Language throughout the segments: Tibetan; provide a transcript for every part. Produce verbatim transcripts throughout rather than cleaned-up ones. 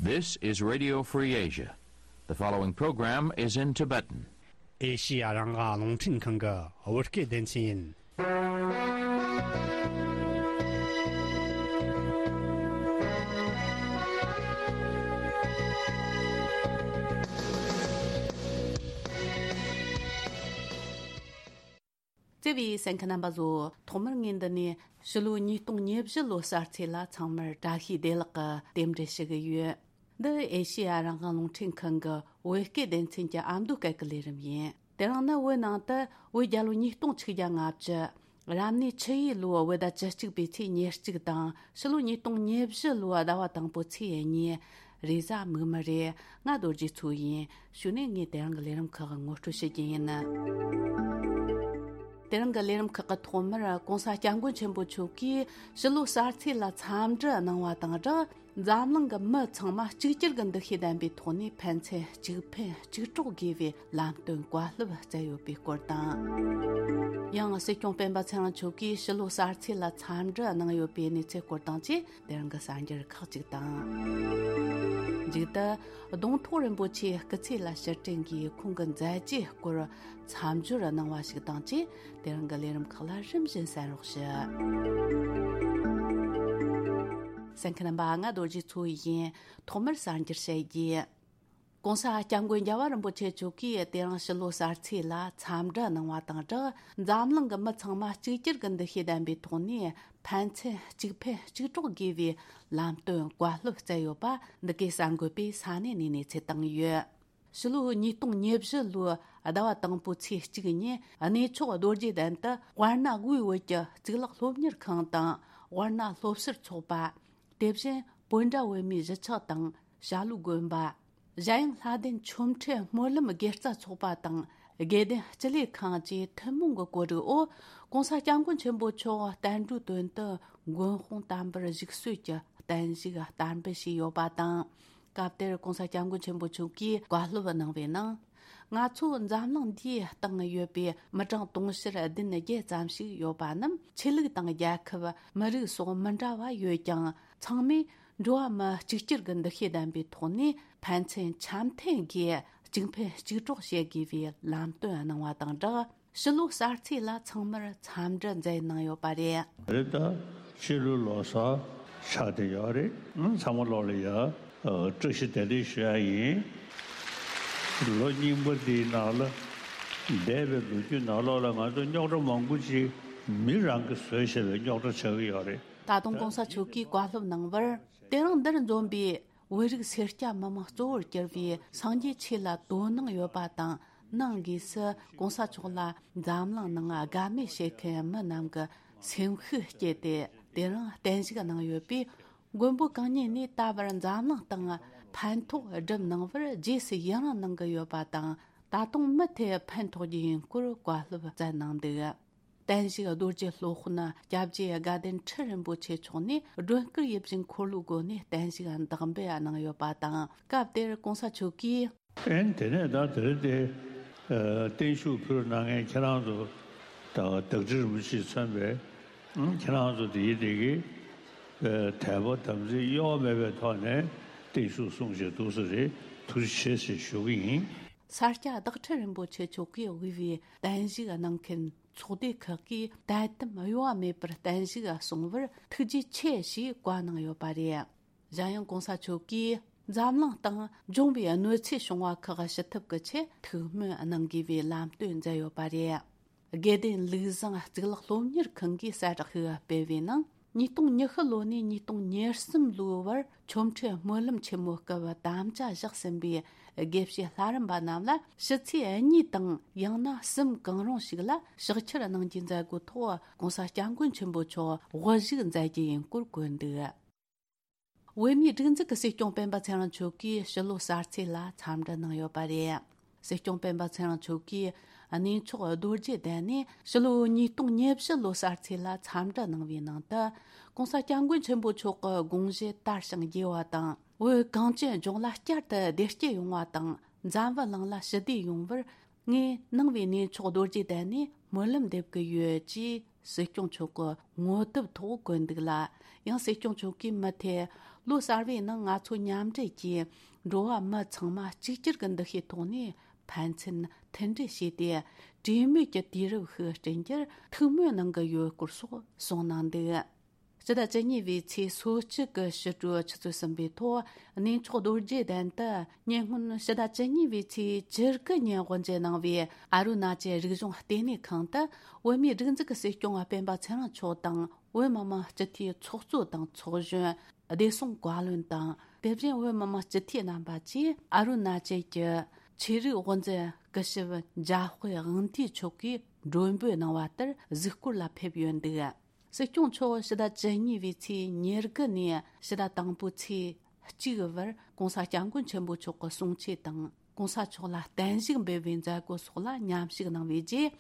This is Radio Free Asia. The following program is in Tibetan. ཨེ་ཤི་ཡ་རང་དབང་རླུང་འཕྲིན་ཁང་གི་བོད་སྐད་སྡེ་ཚན་ཡིན། བརྩེ་བའི་གསན་མཁན་རྣམ་པ་ཚོ། ཐོག་མར་ངས་འདི་ནས་ཕྱི་ལོ་ཉིས་སྟོང་ཉེར་བཞི་ལོ་གསར་ཚེས་ལ་ཚང་མར་བཀྲ་ཤིས་བདེ་ལེགས་ཀྱི་རྟེན་འབྲེལ་ཞུ་གི་ཡོད། འདི་ཨེ་ཤེ་ཡ་རང་དབང་རླུང་འཕྲིན་ཁང་གི་བོད་སྐད་སྡེ་ཚན་གྱི་ཨ་མདོ་སྐད་ཀྱི་ལས་རིམ་ཡིན། དེ་རིང་ནི་བོད་ནང་དུ་བོད་རྒྱལ་ལོ་ཉིས་སྟོང་ཆིག་བརྒྱ་ལྔ་བཅུ། རབ་གནས་ཆུ་ཡོས་ལོའི་བོད་ཟླ་བཅུ་གཅིག་པའི་ཚེས་ཉེར་གཅིག་དང་། ཕྱི་ལོ་ཉིས་སྟོང་ཉེར་བཞི་ལོའི་ཟླ་བ་དང་པོའི་ཚེས་གཉིས། རེས་གཟའ་མིག་དམར་རེད། ང་རྡོ་རྗེ་མཚོ་ཡིན། གཞུག་ནས་ངས་དེ་རིང་གི་ལས་རིམ་ཁག་ངོ་སྤྲོད་བྱེད་ཀྱི་ཡིན། དེ་རིང་གི་ལས་རིམ་ཁག་གི་ཐོག་མར་༸གོང་ས་༸སྐྱབས་མགོན་ཆེན་པོ་མཆོག་གིས་ཕྱི་ལོ་གསར་ཚེས་ལ་འཚམས་འདྲི་གནང་བ་དང་སྦྲགས། འཛམ་གླིང་གི་མི་ཚང་མ་གཅིག་གྱུར་གྱི་འདུ་ཤེས་ལྡན་པའི་ཐོག་ནས་ཕན་ཚུན་གཅིག་ཕན་གཅིག་གྲོགས་དགོས་པའི་ལམ་སྟོན་བཀའ་སློབ་སྩལ་ཡོད་པའི་སྐོར་དང་། ཡང་སྲིད་སྐྱོང་སྤེན་པ་ཚེ་རིང་མཆོག་གིས་ཕྱི་ལོ་གསར་ཚེས་ལ་འཚམས་འདྲི་གནང་ཡོད་པའི་གནས་ཚུལ་སྐོར་དང་བཅས། དེ་རིང་གི་གསར་འགྱུར་ཁག་ཅིག་དང་། མཇུག་ཏུ་གདོང་ཐོག་རིན་པོ་ཆེའི་སྐུ་ཚེ་ལ་ཕྱིར་དྲན་གྱིས་ཁོང་གི་མཛད་རྗེས་སྐོར་མཚམས་སྦྱོར་གནང་བ་ཞིག་དང་བཅས། དེ་རིང་གི་ལས་རིམ་ཁག་ལ་རིམ་བཞིན་གསན་རོགས་ཞུ། གསན་མཁན་རྣམ་པ། ང་རྡོ་རྗེ་མཚོ་ཡིན། ཐོག་མར་གསར་འགྱུར་བཤད་རྒྱུ། ༸གོང་ས་༸སྐྱབས་མགོན་རྒྱལ་བ་རིན་པོ་ཆེ་མཆོག་གིས་དེ་རིང་ཕྱི་ལོ་གསར་ཚེས་ལ་འཚམས་འདྲི་གནང་བ་དང་སྦྲགས། འཛམ་གླིང་གི་མི་ཚང་མ་གཅིག་གྱུར་གྱི་འདུ་ཤེས་ལྡན་པའི་ཐོག་ནས་ཕན་ཚུན་གཅིག་ཕན་གཅིག་གྲོགས་དགོས་པའི་ལམ་སྟོན་བཀའ་སློབ་སྩལ་ཡོད་པ། འདི་གའི་གསར་འགོད་པས་ས་གནས་ནས་གནས་ཚུལ་བཏང་ཡོད། ཕྱི་ལོ་ཉིས་སྟོང་ཉེར་བཞི་ལོའི་ཟླ་བ་དང་པོའི་ཚེས་གཅིག་ཉིན། གནས་མཆོག་རྡོ་རྗེ་གདན་དུ་དབར་ན་དབུས་བོད་ཀྱི་གཙུག་ལག་སློབ་གཉེར་ཁང་དང་། དབར་ན་སློབ་ཟུར་ཚོགས་པ། དེ་བཞིན་བོད་འདྲ་བོད་མིའི་གཞིས་ཆགས་དང་། བྱ་ལུག་དགོན་པ། གཞན་ཡང་ལྷ་ལྡན་ཆོ་འཕྲུལ་སྨོན་ལམ་དགེ་རྩ་ཚོགས་པ་དང་། དགེ་ལྡན་སྤྱི་ལས་ཁང་བཅས་ཐུན་མོང་གི་གོ་སྒྲིག་འོག ༸གོང་ས་༸སྐྱབས་མགོན་ཆེན་པོ་མཆོག་བསྟན་འགྲོའི་དོན་དུ་མགོན་དཔུང་བསྟན་པར་ཞུགས་གསོལ་གྱི་བརྟན་བཞུགས་བསྟར་འབུལ་ཞུས་ཡོད་པ་དང་། སྐབས་དེར་༸གོང་ས་༸སྐྱབས་མགོན་ཆེན་པོ་མཆོག་གིས་བཀའ་སློབ་གནང་བའི་ནང་། ང་ཚོ་འཛམ་གླིང་འདིའི་སྟེང་ཡོད་པའི་མི་གྲངས་དུང་ཕྱུར་བདུན་བརྒྱད་ཙམ་ཞིག་ཡོད་པ་རྣམས། ཆོས་ལུགས་དང་རྒྱལ་ཁབ། མི་རིགས་སོགས་མི་འདྲ་བ་ཡོད་ཀྱང་། ཚང་མས་འགྲོ་བ་མི་གཅིག་གྱུར་གྱི་འདུ་ཤེས་ལྡན་པའི་ཐོག་ནས་ཕན་ཚུན་འཆམ་མཐུན་སྒོས་གཅིག་ཕན་གཅིག་གྲོགས་བྱེད་དགོས་པའི་ལམ་སྟོན་གནང་བ་དང་སྦྲགས། ཕྱི་ལོ་གསར་ཚེས་ལ་ཚང་མར་འཚམས་འདྲི་མཛད་གནང་ཡོད་པ་རེད། རེད་ད། ཕྱི་ལོ་ལོ་གསར་ཆགས་བསྡད་ཡོད་རེད། ཨང་། ཚང་མ་ལོག་ལ་ཡ་ཨ་བཀྲ་ཤིས་བདེ་ལེགས་ཞུ་ཡ་ཡིན། ལོ་རྙིང་པ་འདིའི་ནང་ལ་འདས་པའི་ལོ་རྒྱུས་ནང་ལོགས་ལ་ང་ཚོ་རྙོག་དྲ་མང་པོ་ཅིག་མི་རང་གིས་བཟོས་བཞག་པའི་རྙོག་དྲ་ཆགས་ཀྱི་ཡོད་རེད། ད་དུང་༸གོང་ས་མཆོག་གིས་བཀའ་སློབ་གནང་བར། དེ་རིང་འདིར་འཛོམས་པའི་བོད་རིགས་སེར་སྐྱ་མི་མང་གཙོ་བོར་གྱུར་པའི་སངས་རྒྱས་ཆོས་ལ་དོ་སྣང་ཡོད་པ་དང་། ནང་སྒོས་སུ་༸གོང་ས་མཆོག་ལ་འཛམ་གླིང་ནང་དགའ་མོས་བྱེད་མཁན་མི་རྣམས་ཀྱི་སེམས་ཤུགས་བསྐྱེད་དེ། དེ་རིང་བརྟན་བཞུགས་གནང་ཡོད་པས། མགོན་པོ་གང་ཉིད་ནས་ད་བར་འཛམ་གླིང་སྟེང་ཕན་ཐོགས་སྒྲུབ་གནང་བར་རྗེས་སུ་ཡི་རང་གནང་གི་ཡོད་པ་དང་། ད་དུང་མུ་མཐུད་ཕན་ཐོགས་རྒྱུ་ཡིན་སྐོར་བཀའ་སློབ་སྩལ་གནང་འདུག་བརྟན་བཞུགས་རྡོ་རྗེ་སློབ་དཔོན་སྐྱབས་རྗེ་དགའ་ལྡན་ཁྲི་རིན་པོ་ཆེ་མཆོག་ནས་སྒྲོན་སྐུར་ཡིད་བཞིན་འཁོར་ལོའི་སྒོ་ནས་བརྟན་བཞུགས་བདག་འབུལ་གནང་ཡོད་པ་དང་། སྐབས་དེར་༸གོང་ས་མཆོག་གིས། ཨེ་དེ་ནས་ད་དེ་རིང་དེ་ཨ་བརྟན་བཞུགས་ཕུལ་གནང་མཁན་ཁྱེད་རང་ཚོ་དང་བདག་ཁྲི་རིན་པོ་ཆེས་མཚོན་པའི་ཨང་། ཁྱེད་རང་ཚོ་དེ་ཡི་དེ་གི་ཨ་དད་པ་དམ་ཚིག་གཡོ་བ་མེད་པའི་ཐོག་ནས་བརྟན་བཞུགས་གསུང་བྱས་འདུག་ས་རེད། ཐུགས་རྗེ་ཆེ་ཞེས་ཞུ་གི་ཡིན། ས་སྐྱ་བདག་ཁྲི་རིན་པོ་ཆེ་མཆོག་གིས་དབུས་པའི་བརྟན་བཞུགས་གནང་མཁན་ཚོགས་སྡེ་ཁག་གིས་དད་དམ་གཡོ་བ་མེད་པར་བརྟན་བཞུགས་གསུང་བར་ཐུགས་རྗེ་ཆེ་ཞེས་བཀའ་གནང་ཡོད་པ་རེད། གཞན་ཡང་༸གོང་ས་མཆོག་གིས་འཛམ་གླིང་སྟེང་འབྱུང་བའི་གནོད་འཚེ་བྱུང་བ་ཁག་ཞི་ཐབས་ཀྱི་ཆེད་ཐུགས་སྨོན་གནང་དགོས་པའི་ལམ་སྟོན་མཛད་ཡོད་པ་རེད། དགེ་ལྡན་ལུགས་བཟང་གཙུག་ལག་སློབ་གཉེར་ཁང་གིས་གསལ་བསྒྲགས་ཤིག་སྤེལ་བའི་ནང་། ཉིས་སྟོང་ཉི་ཤུ་ལོ་ནས་ཉིས་སྟོང་ཉེར་གསུམ་ལོའི་བར་ཆོ་འཕྲུལ་སྨོན་ལམ་ཆེན་མོའི་སྐབས་དམ་བཅའ་བཞག་ཟིན་པའི་དགེ་བཤེས་ལྷ་རམས་པ་རྣམས་ལ་ཕྱི་ཚེས་གཉིས་དང་ཡང་ན་གསུམ་གང་རུང་ཞིག་ལ་ཕྱག་འཁྱེར་གནང་རྒྱུའི་མཛད་སྒོའི་ཐོག་༸གོང་ས་༸སྐྱབས་མགོན་ཆེན་པོ་མཆོག་དབུ་བཞུགས་མཛད་རྒྱུ་ཡིན་སྐོར་བཀོད་འདུག་བོད་མིའི་སྒྲིག་འཛུགས་ཀྱི་སྲིད་སྐྱོང་སྤེན་པ་ཚེ་རིང་མཆོག་གིས་ཕྱི་ལོ་གསར་ཚེས་ལ་འཚམས་འདྲི་གནང་ཡོད་པ་རེད། སྲིད་སྐྱོང་སྤེན་པ་ཚེ་རིང་མཆོག་གིས་གནས་མཆོག་རྡོ་རྗེ་གདན་ནས་ཕྱི་ལོ་ཉིས་སྟོང་ཉེར་བཞི་ལོ་གསར་ཚེས་ལ་འཚམས་འདྲི་གནང་བའི་ནང་དུ། ༸གོང་ས་༸སྐྱབས་མགོན་ཆེན་པོ་མཆོག་གི་དགོངས་གཞི་དར་ཞིང་རྒྱས་པ་དང་། བོད་གངས་ཅན་ལྗོངས་ལ་བསྐྱར་དུ་བདེ་སྐྱིད་ཡོང་བ་དང་། འཛམ་བུ་གླིང་ལ་ཞི་བདེ་ཡོང་བར་ངས་ནང་པའི་གནས་མཆོག་རྡོ་རྗེ་གདན་ནས་སྨོན་ལམ་འདེབས་ཀྱི་ཡོད་ཅེས་ སྲིད་སྐྱོང་མཆོག་གི་ངོ་དེབ་ཐོག་བཀོད་འདུག་ལ། ཡང་སྲིད་སྐྱོང་མཆོག་གིས་མུ་མཐུད་ལོ་གསར་བའི་ནང་ང་ཚོ་མཉམ་འབྲེལ་གྱིས་འགྲོ་བ་མི་ཚང་མ་གཅིག་གྱུར་གྱི་འདུ་ཤེས་ཐོག་ནས་ཕན་ཚུན་མཐུན་སྒྲིལ་བྱས་ཏེ། གྲོས་མོལ་གྱི་དུས་རབས་ཤིག་བསྐྲུན་རྒྱུར་ཐུགས་སྨོན་གནང་གི་ཡོད་སྐོར་སོགས་གསུངས་གནང་འདུག་སྤྱི་ཟླ་བཅུ་གཉིས་པའི་ཚེས་སོ་གཅིག་གི་ཕྱི་དྲོའི་ཆུ་ཚོད་གསུམ་པའི་ཐོག་གནས་མཆོག་རྡོ་རྗེ་གདན་དུ། ཉེ་སྔོན་ཕྱི་ཟླ་བཅུ་གཉིས་པའི་ཚེས་བཅུ་དགུ་ཉིན་དབུ་འབྱེད་གནང་བའི་ཨ་རུ་ན་ཅལ་རིག་གཞུང་ལྟེ་གནས་ཁང་དུ། བོད་མིའི་སྒྲིག་འཛུགས་ཀྱི་སྲིད་སྐྱོང་སྤེན་པ་ཚེ་རིང་མཆོག་དང་། བོད་མི་མང་སྤྱི་འཐུས་ཚོགས་གཙོ་དང་ཚོགས་གཞོན། བདེ་སྲུང་བཀའ་བློན་དང་། དེ་བཞིན་བོད་མི་མང་སྤྱི་འཐུས་རྣམ་པ་བཅས་ཨ་རུ་ན་ཅལ་གྱི་ཆོས་རིག་དབུ་འཛིན་སྐུ་ཞབས་འཇམ་དཔལ་དབང་འདུས་མཆོག་གིས་མགྲོན་འབོད་གནང་བ་ལྟར་གཟིགས་སྐོར་ལ་ཕེབས་ཡོད་འདུག་སྲིད་སྐྱོང་མཆོག་ཕྱི་ཟླ་བཅུ་གཉིས་པའི་ཚེས་ཉེར་དགུ་ནས་ཕྱི་ཟླ་དང་པོའི་ཚེས་གཅིག་བར་༸གོང་ས་༸སྐྱབས་མགོན་ཆེན་པོ་མཆོག་གི་གསུང་ཆོས་དང་༸གོང་ས་མཆོག་ལ་བརྟན་བཞུགས་འབུལ་བའི་མཛད་སྒོ་སོགས་ལ་མཉམ་ཞུགས་གནང་བའི་རྗེས།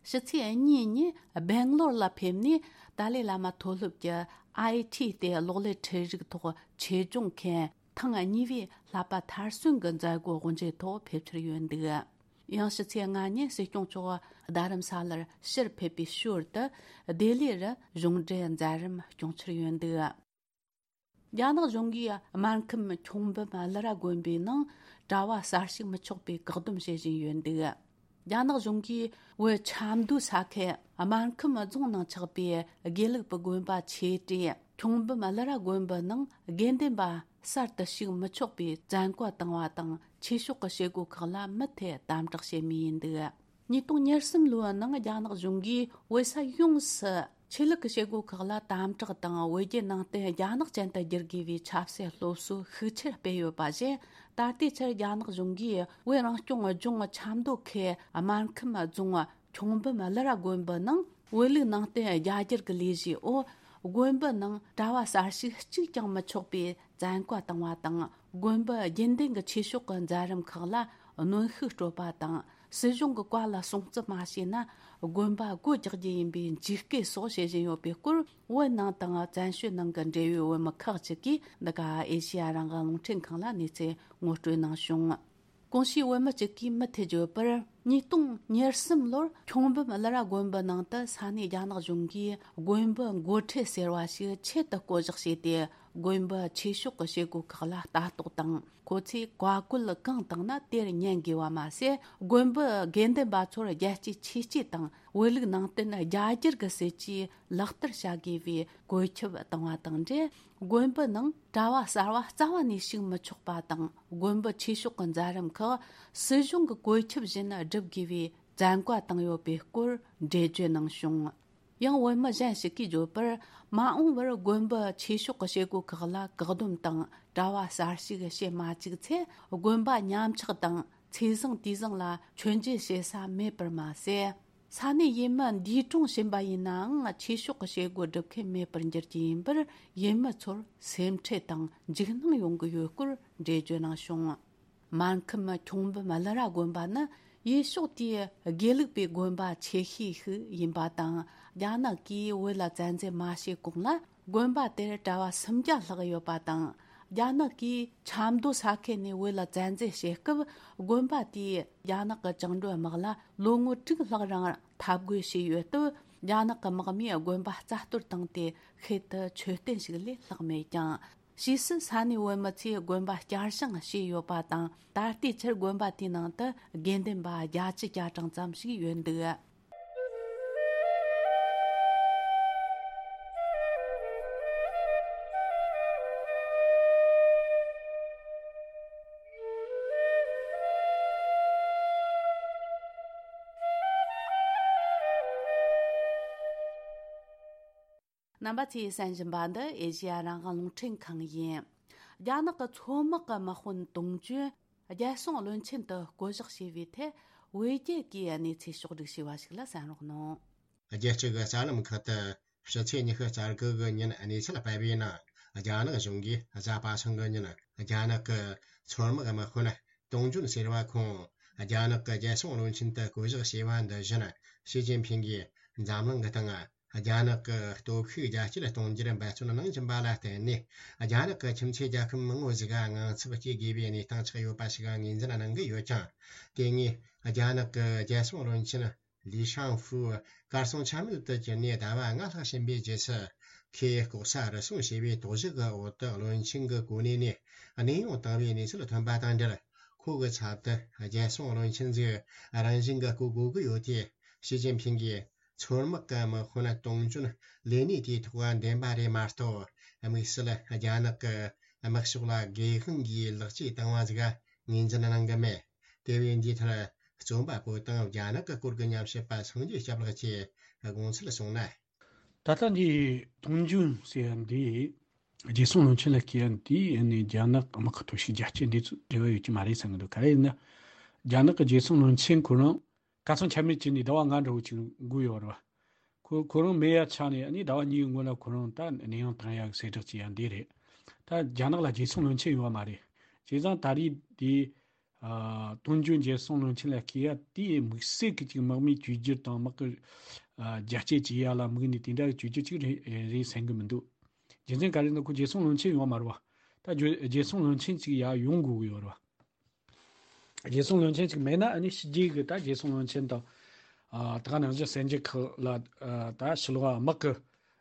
ཕྱི་ཚེས་གཉིས་ཉིན་སྦེང་ལོར་ལ་ཕེབས་ནས། ཏཱ་ལའི་བླ་མ་མཐོ་སློབ་ཀྱི་ཨའི་ཊི་ལྟེ་གློག་ཀླད་འཕྲུལ་རིག་ཐོག་ཆེད་སྦྱོང་མཁན་ཐེངས་གཉིས་པའི་བསླབ་པ་མཐར་སོན་གྱི་མཛད་སྒོ་དབུ་འབྱེད་ཐོག་ཕེབས་འཆར་ཡོད་འདུག་ཡང་ཕྱི་ཚེས་ལྔ་ཉིན་སྲིད་སྐྱོང་མཆོག་རྡ་རམ་ས་ལར་ཕྱིར་ཕེབས་པའི་ཞོར་དུ། ལྡི་ལི་རུ་གཞུང་འབྲེལ་མཛད་རིམ་སྐྱོང་འཆར་ཡོད་འདུག་རྒྱ་ནག་གཞུང་གིས་སྨར་ཁམས་ཁྱུང་འབུམ་ཀླུ་ར་དགོན་པའི་ནང་གྲྭ་བ་གསར་ཞུགས་མི་ཆོག་པའི་བཀག་སྡོམ་བྱེད་བཞིན་ཡོད་འདུག་རྒྱ་ནག་གཞུང་གིས་བོད་ཆབ་མདོ་ས་ཁུལ་སྨར་ཁམས་རྫོང་ནང་ཆགས་པའི་དགེ་ལུགས་པའི་དགོན་པ་ཆེ་གྲས་ཁྱུང་འབུམ་ཀླུ་ར་དགོན་པའི་ནང་དགེ་འདུན་པ་གསར་དུ་ཞུགས་མི་ཆོག་པའི་བཙན་བཀའ་བཏང་བ་དང་། ཆོས་ཕྱོགས་ཀྱི་བྱེད་སྒོ་ཁག་ལ་མུ་མཐུད་དམ་དྲག་བྱེད་མུས་ཡིན་འདུག་ཉིས་སྟོང་ཉེར་གསུམ་ལོའི་ནང་རྒྱ་ནག་གཞུང་གིས་བོད་ས་ཡོངས་སུ་ཆོས་ལུགས་ཀྱི་བྱེད་སྒོ་ཁག་ལ་དམ་དྲག་དང་། བོད་བརྒྱུད་ནང་བསྟན་རྒྱ་ནག་ཅན་དུ་བསྒྱུར་དགོས་པའི་ཆབ་སྲིད་སློབ་གསོ་ཤུགས་ཆེར་སྤེལ་ཡོད་པ་བཞིན། ད་ལྟའི་ཆར་རྒྱ་ནག་གཞུང་གིས་བོད་རང་སྐྱོང་ལྗོངས་ཆབ་མདོ་ཁུལ་སྨར་ཁམས་རྫོང་ཁྱུང་འབུམ་ཀླུ་ར་དགོན་པའི་ནང་བོད་ལུགས་ནང་བསྟན་རྒྱ་སྒྱུར་གྱི་ལས་གཞིའི་འོག་དགོན་པའི་ནང་གྲྭ་བ་གསར་ཞུགས་གཅིག་ཀྱང་མི་ཆོག་པའི་བཙན་བཀའ་བཏང་བ་དང་། དགོན་པའི་དགེ་འདུན་གྱི་ཆོས་ཕྱོགས་ཀྱི་མཛད་རིམ་ཁག་ལ་གནོན་ཤུགས་སྤྲོད་པ་དང་། སྲིད་གཞུང་གི་བཀའ་ལ་སྲུང་བརྩི་མ་བྱས་ན། དགོན་པ་སྒོ་རྒྱག་རྒྱུ་ཡིན་པའི་འཇིགས་སྐུལ་སོགས་བྱེད་བཞིན་ཡོད་པའི་སྐོར། བོད་ནང་དང་བཙན་བྱོལ་ནང་གི་འབྲེལ་ཡོད་བོད་མི་ཁག་ཅིག་གིས་འདི་ག་ཨེ་ཤེ་ཡ་རང་དབང་རླུང་འཕྲིན་ཁང་ལ་གནས་ཚུལ་ངོ་སྤྲོད་གནང་བྱུང་། གོང་ཞུས་བོད་མི་གཅིག་གིས་མུ་མཐུད་བརྗོད་པར། ཉིས་སྟོང་ཉེར་གསུམ་ལོར་ཁྱུང་འབུམ་ཀླུ་ར་དགོན་པའི་ནང་དུ་ས་གནས་རྒྱ་ནག་གཞུང་གིས་དགོན་པའི་འགོ་ཁྲིད་ཟེར་བ་ཞིག་ཆེད་དུ་བསྐོ་གཞག་བྱས་ཏེ། དགོན་པའི་ཆོས་ཕྱོགས་ཀྱི་བྱེད་སྒོ་ཁག་ལ་ལྟ་རྟོག་དང་། ཁོ་ཚོས་བཀའ་བཀོད་གང་བཏང་ན་དེར་ཉན་དགོས་པ་མ་ཟད། དགོན་པའི་དགེ་འདུན་པ་ཚོར་རྒྱལ་གཅེས་ཆོས་གཅེས་དང་། བོད་ལུགས་ནང་བསྟན་རྒྱ་སྒྱུར་གྱི་སྲིད་ཇུས་ལག་བསྟར་བྱ་དགོས་པའི་བཀོད་ཁྱབ་བཏང་བ་དང་འབྲེལ། དགོན་པའི་ནང་གྲྭ་བ་གསར་བ་རྩ་བ་ནས་ཞུགས་མི་ཆོག་པ་དང་། དགོན་པའི་ཆོས་ཕྱོགས་ཀྱི་མཛད་རིམ་ཁག་སྲིད་གཞུང་གི་བཀོད་ཁྱབ་བཞིན་བསྒྲུབ་དགོས་པའི་བཙན་བཀའ་བཏང་ཡོད་པའི་སྐོར་འགྲེལ་བརྗོད་གནང་བྱུང་། ཡང་བོད་མི་གཞན་ཞིག་གིས་བརྗོད་པར། མ་འོངས་པར་དགོན་པའི་ཆོས་ཕྱོགས་ཀྱི་བྱེད་སྒོ་ཁག་ལ་བཀག་སྡོམ་དང་། གྲྭ་བ་གསར་ཞུགས་བྱེད་མ་བཅུག་ཚེ། དགོན་པ་ཉམས་ཆག་དང་། ཚེས་བཟང་དུས་བཟང་ལ་མཆོད་མཇལ་བྱེད་ས་མེད་པར་མ་ཟད། ས་གནས་ཡུལ་མི་འདུས་གྲོངས་ཕྱིན་པ་ཡིན་ནའང་། ཆོས་ཕྱོགས་ཀྱི་བྱེད་སྒོ་སྒྲུབ་མཁན་མེད་པར་འགྱུར་རྒྱུ་ཡིན་པར། ཡུལ་མི་ཚོར་སེམས་ཁྲལ་དང་འཇིགས་སྣང་ཡོང་གི་ཡོད་སྐོར་འགྲེལ་བརྗོད་གནང་བྱུང་། སྨར་ཁམས་ཁྱུང་འབུམ་ཀླུ་ར་དགོན་པ་ནི་ཡུལ་ཕྱོགས་དེའི་དགེ་ལུགས་པའི་དགོན་པ་ཆེ་ཤོས་ཤིག་ཡིན་པ་དང་། རྒྱ་ནག་གིས་བོད་ལ་བཙན་འཛུལ་མ་བྱས་གོང་ལ། དགོན་པ་དེར་གྲྭ་བ་སུམ་བརྒྱ་ལྷག་ཡོད་པ་དང་། རྒྱ་ནག་གིས་ཆབ་མདོ་ས་ཁུལ་ནས་བོད་ལ་བཙན་འཛུལ་བྱེད་སྐབས། དགོན་པ་དེས་རྒྱ་ནག་གི་བཅིངས་འགྲོལ་དམག་ལ་ལོ་ངོ་དྲུག་ལྷག་རིང་འཐབ་རྒོལ་བྱས་ཡོད་སྟབས། རྒྱ་ནག་གི་དམག་མིས་དགོན་པ་རྩ་གཏོར་བཏང་སྟེ། ཤུལ་དུ་མཆོད་རྟེན་ཞིག་ལས་ལྷག་མེད་ཀྱང་། ཕྱིས་སུ་ས་གནས་བོད་མི་ཚོས་དགོན་པ་བསྐྱར་བཞེངས་བྱས་ཡོད་པ་དང་། ད་ལྟའི་ཆར་དགོན་པ་དེའི་ནང་དུ་དགེ་འདུན་པ་བརྒྱད་ཅུ་གྱ་གྲངས་ཙམ་ཞིག་ཡོད་འདུག་རྣམ་པ་ཚོས་གསན་བཞིན་པ་འདི་ཨེ་ཤེ་ཡ་རང་དབང་རླུང་འཕྲིན་ཁང་ཡིན། རྒྱ་ནག་གི་མཚོ་དམག་གི་དམག་དཔོན་དུང་ཅུན་རྒྱལ་སྲུང་བློན་ཆེན་དུ་བསྐོ་གཞག་བྱས་པའི་ཐད། བོད་རྒྱ་གིས་གནས་ཚུལ་ཕྱོགས་བསྒྲིགས་བྱས་པ་ཞིག་ལ་གསན་རོགས་གནང་། རྒྱལ་སྤྱི་གི་གསར་ལམ་ཁག་ཏུ་ཕྱི་ཚེས་ཉི་ཤུ་རྩ་དགུ་གི་ཉིན་གནས་ཚུལ་སྤེལ་བའི་ནང་། རྒྱ་ནག་གཞུང་གིས་གཟའ་པ་སངས་ཀྱི་ཉིན་རྒྱ་ནག་གི་མཚོ་དམག་དམག་དཔོན་ཏུང་ཅུན་ཟེར་བ་ཁོང་རྒྱ་ནག་གི་རྒྱལ་སྲུང་བློན་ཆེན་དུ་བསྐོ་གཞག་བྱས་པ་འདི་བཞིན། ཞི་ཅིན་ཕིང་གིས་འཛམ་གླིང་གི་སྟེང་རྒྱ་ནག་གི་སྟོབས་ཤུགས་རྒྱ་སྐྱེད་གཏོང་རྒྱུར་འབད་བརྩོན་གནང་བཞིན་པ་ལ་བརྟེན་ནས། རྒྱ་ནག་གི་ཁྱིམ་མཚེས་རྒྱལ་ཁབ་མང་བོ་ཞིག་ག་དངངས་འཚབ་སྐྱེ་དགོས་པའི་གནས་སྟངས་ཆགས་ཡོད་པ་ཞིག་ངོས་འཛིན་གནང་གི་ཡོད་ཀྱང་། དེ་སྔའི་རྒྱ་ནག་གི་རྒྱལ་སྲུང་བློན་ཆེན་ ལི་ཤང་ཧྥུའུ་གར་སོང་ཆ་མེད་དུ་གྱུར་ནས་ཟླ་བ་ལྔ་ལྷག་ཕྱིན་པའི་རྗེས་སུ། ཁོས་ལྐོག་ཟ་རུལ་སུངས་བྱས་པའི་དོགས་གཞི་གི་འོག་ཏུ་བློན་ཆེན་གྱི་གོ་གནས་ནས་གནས་དབྱུང་བཏང་བའི་གནས་ཚུལ་ཐོན་པ་དང་འབྲེལ། ཁོ་གི་ཚབ་ཏུ་རྒྱལ་སྲུང་བློན་ཆེན་ཟིག་རང་བཞིན་གྱི་བསྐོ་དགོས་ཀྱི་ཡོད་དེ། ཞི་ཅིན་ཕིང་གིས་མཚོ་དམག་གི་དམག་དཔོན་ཏུང་ཅུན་ལས་གནས་དེའི་ཐོག་འདེམས་པ་རེད་མ་གཏོགས། དམིགས་བསལ་རྒྱ་ནག་གི་དམག་ཕྱོགས་ལ་སྒེར་དབང་གིས་ལག་རྗེས་བཏང་བ་ཟིག་ངོས་འཛིན་གནང་གི་མེད། དེ་བས་འདིའི་མཐར། རྩོམ་པ་པོ་དང་རྒྱ་ནག་གི་སྐོར་གྱི་ཉམས་ཞིབ་པ་སངས་རྒྱས་སྐྱབས་ལགས་ཀྱིས་དགོངས་ཚུལ་གསུངས་ན། ད་ལྟ་འདི་ཏུང་ཅུན་ཟེར་ཡ་འདི་རྒྱལ་སྲུང་བློན་ཆེན་ལ་བསྐོས་ཡ་འདི་ནི་རྒྱ་ནག་དམག་གི་སྟོབས་ཤུགས་རྒྱ་སྐྱེད་འདི་ཚོ་འབྲེལ་བ་ཡོད་ཀྱི་མ་རེད་བསམ་གི་འདུག་ག་རེ་ཡིན་ན། རྒྱ་ནག་གི་རྒྱལ་སྲུང་བློན་ཆེན་ཁོ་རང་གར་སོང་ཆ་མེད་བྱས་ནས་ཟླ་བ་ལྔ་འདྲ་བོ་ཅིག་འགོར་ཡོད་རེད་བ། ཁོ་ཁོ་རང་མེད་ཡ་ཆགས་ནས་ཨ་ནི་ཟླ་བ་གཉིས་སྔོན་ལ་ཁོ་རང་ད་གནས་དབྱུང་བཏང་ཡ་གི་གསལ་བསྒྲགས་བྱས་ཡ་འདི་རེད། ད་རྒྱ་ནག་ལ་རྒྱལ་སྲུང་བློན་ཆེན་ཡོད་མ་རེད། བྱས་ཙང་ད་རེས་འདི། ཨ། ཏུང་ཅུན་རྒྱལ་སྲུང་བློན་ཆེན་ལ་བསྐོས་ཡ་དེ་དམིགས་བསལ་གྱི་ཅིག་དམག་མིའི་བཅོས་བསྒྱུར་དང་དམག་གི། ཨ། རྒྱ་སྐྱེད་བྱེད་ཡ་ལ་དམིགས་ནས་དེ་འདྲ་གི་བཅོས་བསྒྱུར་ཅིག་རེད་རེད་བསམ་གི་མི་འདུག་རྒྱུ་མཚན་ག་རེ་ན་ཁོ་རྒྱལ་སྲུང་བློན་ཆེན་ཡོད་མ་རེད་བ། ད་རྒྱུ་རྒྱལ་སྲུང་བློན་ཆེན་ཅིག་ཡ་ཡོང་དགོས་གི་ཡོད་རེད་བ། རྒྱལ་སྲུང་བློན་ཆེན་ཅིག་མེད་ན་ཨ་ནི་ཕྱི་རྒྱལ་གི་ད་རྒྱལ་སྲུང་བློན་ཆེན་དང་། ཨ། ད་ག་ནང་བཞིན་གསར་འགྱུར་ཁག་ལ། ཨ། ད་ཕྱི་ལོགས་དམག་གི།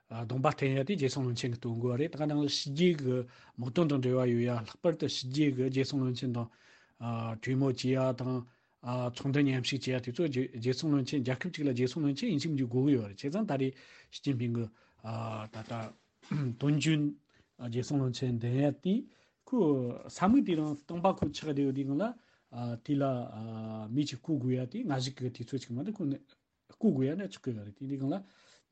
ཨ། གདོང་པ་བསྟན་ཡ་དེ་རྒྱལ་སྲུང་བློན་ཆེན་གྱི་དོན་དགོས་པ་རེད། ད་ག་ནང་བཞིན་ཕྱི་རྒྱལ་གྱི་དམག་དོན་དང་འབྲེལ་བ་ཡོད་ཡ། ལྷག་པར་དུ་ཕྱི་རྒྱལ་གྱི་རྒྱལ་སྲུང་བློན་ཆེན་དང་། ཨ། གྲོས་མོལ་བྱེད་ཡ་དང་། ཨ། ཚོགས་འདུ་མཉམ་ཞུགས་བྱེད་ཡ་དེ་ཚོ་རྒྱལ་རྒྱལ་སྲུང་བློན་ཆེན། རྒྱལ་ཁབ་ཅིག་ལ་རྒྱལ་སྲུང་བློན་ཆེན་ཡིན་གཅིག་མིན་གཅིག་དགོས་ཀྱི་ཡོད་རེད། བྱས་ཙང་ད་རེས་ཞི་ཅིན་ཕིང་གི། ཨ། ད་ལྟ་ཏུང་ཅུན་རྒྱལ་སྲུང་བློན་ཆེན་འདེམས་ཡ་དེ་ཁོ་ས་མིག་དེ་རིང་སྟོང་པ་ཁོ་ཆགས་བསྡད་ཡོད་དུས་སྒང་ལ། ཨ། དེ་ལ། ཨ། མི་ཅིག་བསྐོ་དགོས་ཡ་དེ་སྔ་གཞུག་གི་དུས་ཚོད་ཅིག་མ་གཏོགས་ཁོ་ནི། བསྐོ་དགོས་ཡ་ན་ཆགས་ཀྱི་ཡོད་རེད། དེ་འདི་སྒང་ལ་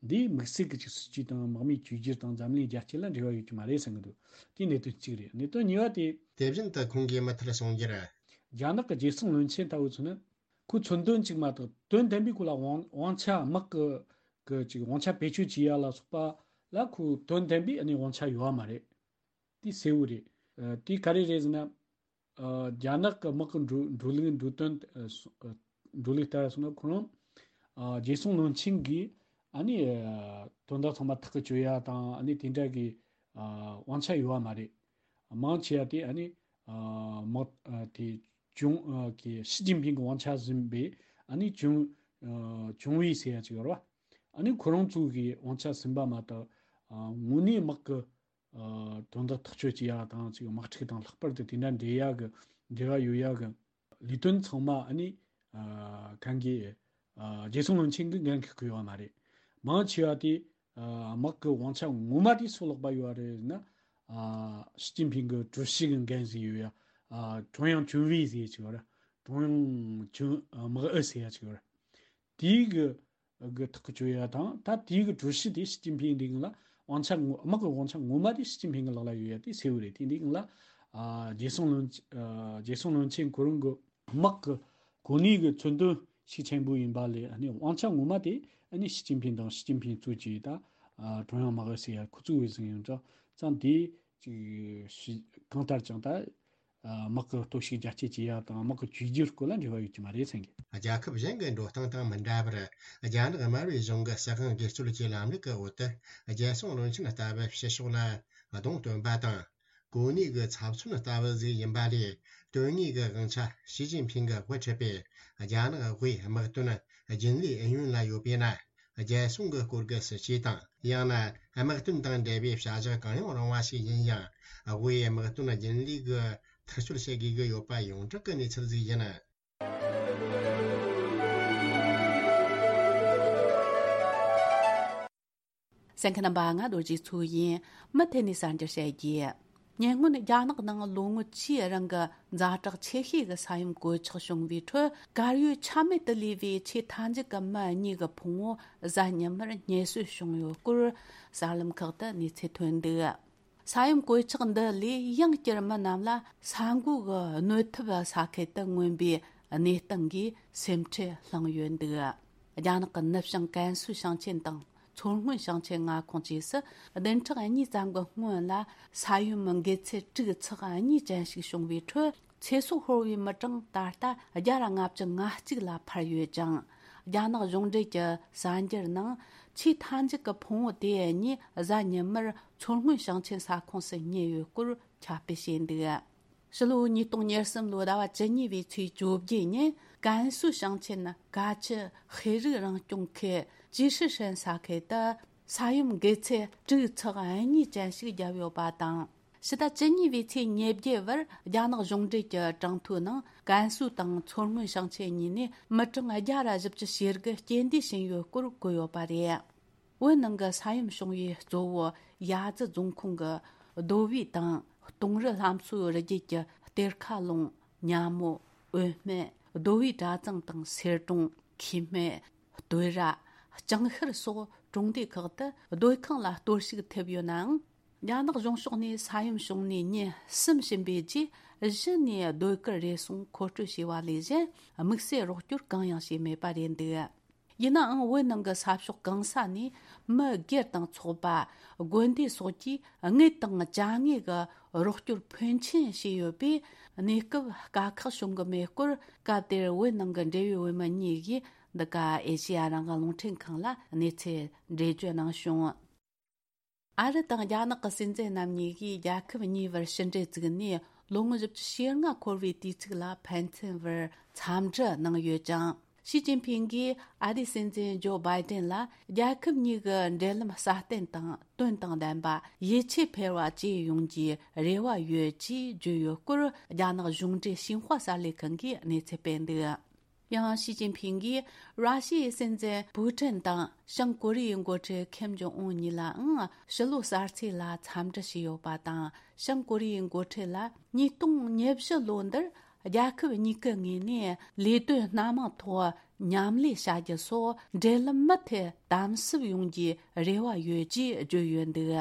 འདིའི་དམིགས་བསལ་གྱི་ཅིག་སྲིད་ཇུས་དང་དམག་མིའི་བཅོས་བསྒྱུར་དང་འཛམ་གླིང་རྒྱ་སྐྱེད་ལ་འབྲེལ་བ་ཡོད་ཀྱི་མ་རེད་བསམ་གྱི་འདུག་དེ་གནད་དོན་གཅིག་རེད། གནད་དོན་གཉིས་པ་དེ། དེ་བཞིན་དུ་ཁོང་གིས་མུ་མཐུད་གསུངས་རྒྱུར། རྒྱ་ནག་གི་རྒྱལ་སྲུང་བློན་ཆེན་ལྟ་བུ་ཚོ་ནི། ཁོའི་མཚོན་དོན་གཅིག་མ་གཏོགས་དོན་ལྡན་པའི་སྐོར་ལ་དབང་དབང་ཆ། དམག་གི་གི་ཅིག་དབང་ཆ་བེད་སྤྱོད་བྱེད་ཡ་ལ་སོགས་པ་ལ་ཁོའི་དོན་ལྡན་པའི་ཨ་ནི་དབང་ཆ་ཡོད་པ་མ་རེད། དེ་གསལ་བོ་རེད། ཨ། དེ་ག་རེ་རེད་ཟེར་ན། ཨ། རྒྱ་ནག་གི་དམག་གི་འགྲོ་འགྲོ་ལུགས། འགྲོ་དོན། ཨ། སོ་ཨ། འགྲོ་ལུགས་ལྟར་སོང་ན་ཁོ་རང་། ཨ། རྒྱལ་སྲུང་བློན་ཆེན་གྱིས་ཨ་ནི། ཨ། དོན་དག་ཚང་མ་ཐག་གིས་གཅོད་ཡ་དང་། ཨ་ནི་དེ་འདྲ་གི། ཨ། དབང་ཆ་ཡོད་པ་མ་རེད། མང་ཆེ་བ་དེ་ཨ་ནི། ཨ། དམག་ཨ། དེ་ཅུང་། ཨ། གི་ཞི་ཅིན་ཕིང་གི་དབང་ཆ་ཟིན་པའི་ཨ་ནི་ཅུང་། ཨ། ཅུང་ཝུའེ་ཟེར་ཡ་ཅིག་ཡོད་རེད་བ། ཨ་ནི་ཁོ་རང་ཚོ་གི་དབང་ཆ་ཟིན་པ་མ་གཏོགས། ཨ། དངོས་གནས་དམག་གི། ཨ། དོན་དག་ཐག་གཅོད་བྱེད་ཡ་དང་། ཅིག་དམག་འཁྲུག་དང་ལྷག་པར་དུ་དེ་འདྲ་འདྲེས་ཡ་གི། འབྲེལ་བ་ཡོད་ཡ་གི་ལས་དོན་ཚང་མ་ཨ་ནི། ཨ། གང་གི། ཨ། རྒྱལ་སྲུང་བློན་ཆེན་གྱིས་འགན་འཁུར་གི་ཡོད་མ་རེད། མང་ཆེ་བ་དེ། ཨ། དམག་གི་དབང་ཆ་ངོ་མ་དེ་སུ་ལག་པ་ཡོད་རེད་ཟེར་ན། ཨ། ཞི་ཅིན་ཕིང་གི་ཀྲུའུ་ཞི་གི་འགན་ཟིག་ཡོད་ཡ། ཨ། ཀྲུང་དབྱང་ཅུང་ཝུའེ་ཟེར་ཡ་ཅིག་ཡོད་རེད། ཀྲུང་དབྱང་ཅུང་། ཨ། དམག་ཨུ་ཟེར་ཡ་ཅིག་ཡོད་རེད། དེའི་གི་གི་ཐག་གཅོད་ཡ་དང་། ད་དེའི་གི་ཀྲུའུ་ཞི་དེ་ཞི་ཅིན་ཕིང་འདི་གི་ལ་དབང་ཆ་ངོ་། དམག་གི་དབང་ཆ་ངོ་མ་དེ་ཞི་ཅིན་ཕིང་གི་ལག་ལ་ཡོད་ཡ་དེ་གསལ་བོ་རེད། དེ་འདི་གི་ལ། ཨ། རྒྱལ་སྲུང་བློན། ཨ། རྒྱལ་སྲུང་བློན་ཆེན་ཁོ་རང་གི་དམག་གི་གོ་གནས་གི་མཚོན་དོན་ཤུགས་ཆེན་པོ་ཡིན་པ་ལས། ཨ་ནི་དབང་ཆ་ངོ་མ་དེ་ཨ་ནི་ཞི་ཅིན་ཕིང་དང་། ཞི་ཅིན་ཕིང་གཙོས་ཀྱི་ད། ཨ། ཀྲུང་དབྱང་དམག་ཨུ་ཟེར་ཡ་ཁོ་ཚོ་གི་ཟིན་ཡོད་ཙང་། ཙང་དེ་ཅིག་ཞི། གང་ལྟར་ཀྱང་ད། ཨ། དམག་གི་སྟོབས་ཤུགས་རྒྱ་སྐྱེད་བྱེད་ཡ་དང་། དམག་གི་བཅོས་བསྒྱུར་སྐོར་ལ་འབྲེལ་བ་ཡོད་ཀྱི་མ་རེད་བསམ་གི། རྒྱལ་ཁབ་གཞན་གྱི་འགྲོ་སྟངས་དང་མི་འདྲ་བར། རྒྱ་ནག་དམར་པོའི་གཞུང་གི་སྲིད་དབང་སྒེར་གཅོད་ཀྱི་ལམ་ལུགས་ཀྱི་འོག་ཏུ། རྒྱལ་སྲུང་བློན་ཆེན་ལྟ་བུ་ཕྱི་ཕྱོགས་ལ་གདོང་སྟོན་པ་དང་། གོ་གནས་ཀྱི་ཚབ་མཚོན་ལྟ་བུ་ཟིག་ཡིན་པ་ལས། དོན་དངོས་ཀྱི་དབང་ཆ་ཞི་ཅིན་ཕིང་གིས་དབུ་ཁྲིད་པའི་རྒྱ་ནག་དབུས་དམག་དོན་རྒྱུན་ལས་ཨུ་ཡོན་ལ་ཡོད་པས་ན། རྒྱལ་སྲུང་གི་སྐོར་གྱི་སྲིད་ཇུས་དང་། ཡང་ན་དམག་དོན་དང་འབྲེལ་བའི་བྱ་གཞག་གང་ཡང་རུང་བ་ཞིག་ཡིན་ཡང་། དབུས་དམག་དོན་རྒྱུན་ལས་ཀྱིས་ཐག་གཅོད་བྱེད་དགོས་ཀྱི་ཡོད་པ་ཡོངས་གྲགས་ཀྱི་གནས་ཚུལ་ཞིག་ཡིན། གསན་མཁན་རྣམ་པ། ང་རྡོ་རྗེ་མཚོ་ཡིན། མུ་མཐུད་ནས་གསར་འགྱུར་བཤད་རྒྱུ། ཉེ་སྔོན་རྒྱ་ནག་ནང་ལོ་ངོ་བཅུའི་རིང་གི་ཛ་དྲག་ཆེ་ཤོས་ཀྱི་ས་ཡོམ་གོད་ཆག་བྱུང་བའི་ཁྲོད། དཀར་ཡོལ་ཆ་མེད་དུ་ལུས་པའི་ཆེས་མཐའ་མཇུག་གི་མི་གཉིས་ཀྱི་ཕུང་བོ་གཟའ་ཉི་མར་རྙེད་སོན་བྱུང་ཡོད་སྐོར། གསར་ལམ་ཁག་ཏུ་གནས་ཚུལ་ཐོན་འདུག་ས་ཡོམ་གོད་ཆག་འདི་ལས་ཡང་བསྐྱར་མི་རྣམས་ལ་ས་འགོ་གི་གནོད་ཐེབས་ས་ཁུལ་དུ་མངོན་པའི་གནས་སྟངས་ཀྱིས་སེམས་ཁྲལ་བསླངས་ཡོད་འདུག་རྒྱ་ནག་གི་ནུབ་བྱང་ཀན་སུའུ་ཞིང་ཆེན་དང་མཚོ་སྔོན་ཞིང་ཆེན་མངའ་ཁོངས་བཅས་སུ་བདུན་ཕྲག་གཉིས་ཙམ་གྱི་སྔོན་ལ་ས་ཡོམ་འགོས་ཚད་དྲུག་ཚེག་གཉིས་ཅན་ཞིག་བྱུང་བའི་ཁྲོད། ཚེ་སྲོག་ཤོར་བའི་མི་གྲངས་ད་ལྟ་བརྒྱ་དང་ལྔ་བཅུ་ང་གཅིག་ལ་འཕར་ཡོད་ཅིང་། རྒྱ་ནག་གཞུང་འབྲེལ་གྱི་གསར་འགྱུར་ནང་ཆེས་མཐའ་མཇུག་གི་ཕུང་བོ་དེ་གཉིས་གཟའ་ཉི་མར་མཚོ་སྔོན་ཞིང་ཆེན་ས་ཁོངས་སུ་རྙེད་ཡོད་སྐོར་ཁྱབ་སྤེལ་བྱས་འདུག་ཕྱི་ལོ་ཉིས་སྟོང་ཉེར་གསུམ་ལོའི་ཟླ་བ་བཅུ་གཉིས་པའི་ཚེས་བཅོ་བརྒྱད་ཉིན། ཀན་སུའུ་ཞིང་ཆེན་ཀ་ཆི་ཤེས་རིག་རང་སྐྱོང་ཁུལ་ཅི་ཧྲི་ཧྲན་ས་ཁུལ་དུ། ས་ཡོམ་འགུལ་ཚད་དྲུག་ཚེག་གཉིས་ཅན་ཞིག་བརྒྱབ་ཡོད་པ་དང་། ཕྱི་ཟླ་བཅུ་གཉིས་པའི་ཚེས་ཉེར་བརྒྱད་བར་རྒྱ་ནག་གཞུང་འབྲེལ་གྱི་གྲངས་ཐོའི་ནང་། ཀན་སུའུ་དང་མཚོ་སྔོན་ཞིང་ཆེན་གཉིས་ནས་མི་གྲངས་བརྒྱ་ར་བཞི་བཅུ་ཞེ་དགུ་རྐྱེན་འདས་ཕྱིན་ཡོད་སྐོར་བཀོད་ཡོད་པ་རེད། བོད་ནང་གི་ས་ཡོམ་བྱུང་བའི་གཙོ་བོ་ཡ་ཙི་རྫོང་ཁོངས་ཀྱི་རྡོ་བུའི་དང་། གཏོང་རི་ལྷ་མཚོའི་རི་རྒྱུད་ཀྱི་གཏེར་ཁ་ལུང་། ཉ་མོ། འོད་སྨད། རྡོ་བུའི་གྲྭ་ཚང་དང་སེར་གྲོང་། ཁེ་སྨད། སྟོད་ར། ལྕང་ཤར་སོགས་གྲོང་སྡེ་ཁག་ཏུ་སྡོད་ཁང་ལ་གཏོར་བཤིག་ཐེབས་ཡོད་ནའང་། རྒྱ་ནག་གཞུང་ཕྱོགས་ནས་ས་ཡོམ་བྱུང་ནས་ཉིན་གསུམ་ཕྱིན་པའི་རྗེས། གཞི་ནས་སྡོད་གར་རེ་ཟུང་མཁོ་སྤྲོད་བྱས་པ་ལས་གཞན། དམིགས་བསལ་རོགས་སྐྱོར་གང་ཡང་བྱས་མེད་པ་རེད་འདུག་ཡིན་ནའང་། བོད་ནང་གི་ས་ཕྱོགས་གང་ས་ནས་མི་སྒེར་དང་ཚོགས་པ། དགོན་སྡེ་སོགས་ཀྱིས་དངུལ་དང་ཅ་དངོས་ཀྱི་རོགས་སྐྱོར་ཕོན་ཆེན་བྱས་ཡོད་པས། གནས་སྐབས་དཀའ་ཁག་བྱུང་གི་མེད་སྐོར། སྐབས་དེར་བོད་ནང་གི་འབྲེལ་ཡོད་བོད་མི་གཉིས་ཀྱིས་འདི་ག་ཨེ་ཤེ་ཡ་རང་དབང་རླུང་འཕྲིན་ཁང་ལ་གནས་ཚུལ་འགྲེལ་བརྗོད་གནང་བྱུང་། ཨ་རི་དང་རྒྱ་ནག་གི་སྲིད་འཛིན་རྣམ་གཉིས་ཀྱིས་རྒྱལ་ཁབ་གཉིས་བར་ཕྱི་འབྲེལ་བཙུགས་ནས་ལོ་ངོ་བཞི་བཅུ་ཞེ་ལྔ་འཁོར་བའི་དུས་ཚིགས་ལ་ཕན་ཚུན་བར་འཚམས་འདྲི་གནང་ཡོད་ཅིང་། ཞི་ཅིན་ཕིང་གིས་ཨ་རིའི་སྲིད་འཛིན་ཇོ་བྷའི་ཏན་ལ་རྒྱལ་ཁབ་གཉིས་ཀྱི་འབྲེལ་ལམ་སྲ་བརྟན་དང་དོན་དང་ལྡན་པ། ཡིད་ཆེས་འཕེར་བ་བཅས་ཡོང་རྒྱུའི་རེ་བ་ཡོད་ཅེས་བརྗོད་ཡོད་སྐོར། རྒྱ་ནག་གཞུང་འབྲེལ་ཤིན་ཧྭ་གསར་ལས་ཁང་གིས་གནས་ཚུལ་སྤེལ་འདུག་ཡང་། ཞི་ཅིན་ཕིང་གིས་ར་ཤི་ཡའི་སྲིད་འཛིན་པུ་ཀྲིན་དང་། བྱང་ཀོ་རི་ཡའི་འགོ་ཁྲིད་ཁེམ་ཇོང་ཨུན་གཉིས་ལའང་ཕྱི་ལོ་གསར་ཚེས་ལ་འཚམས་འདྲི་བྱས་ཡོད་པ་དང་། བྱང་ཀོ་རི་ཡའི་འགོ་ཁྲིད་ལ་ཉིས་སྟོང་ཉེར་བཞི་ལོ་འདིར་རྒྱལ་ཁབ་གཉིས་ཀྱི་ངོས་ནས་ལས་དོན་སྣ་མང་ཐོག་མཉམ་ལས་བྱ་རྒྱུ་སོགས་འབྲེལ་ལམ་མུ་མཐུད་དམ་ཟབ་ཡོང་རྒྱུའི་རེ་བ་ཡོད་ཅེས་བརྗོད་ཡོད་འདུག་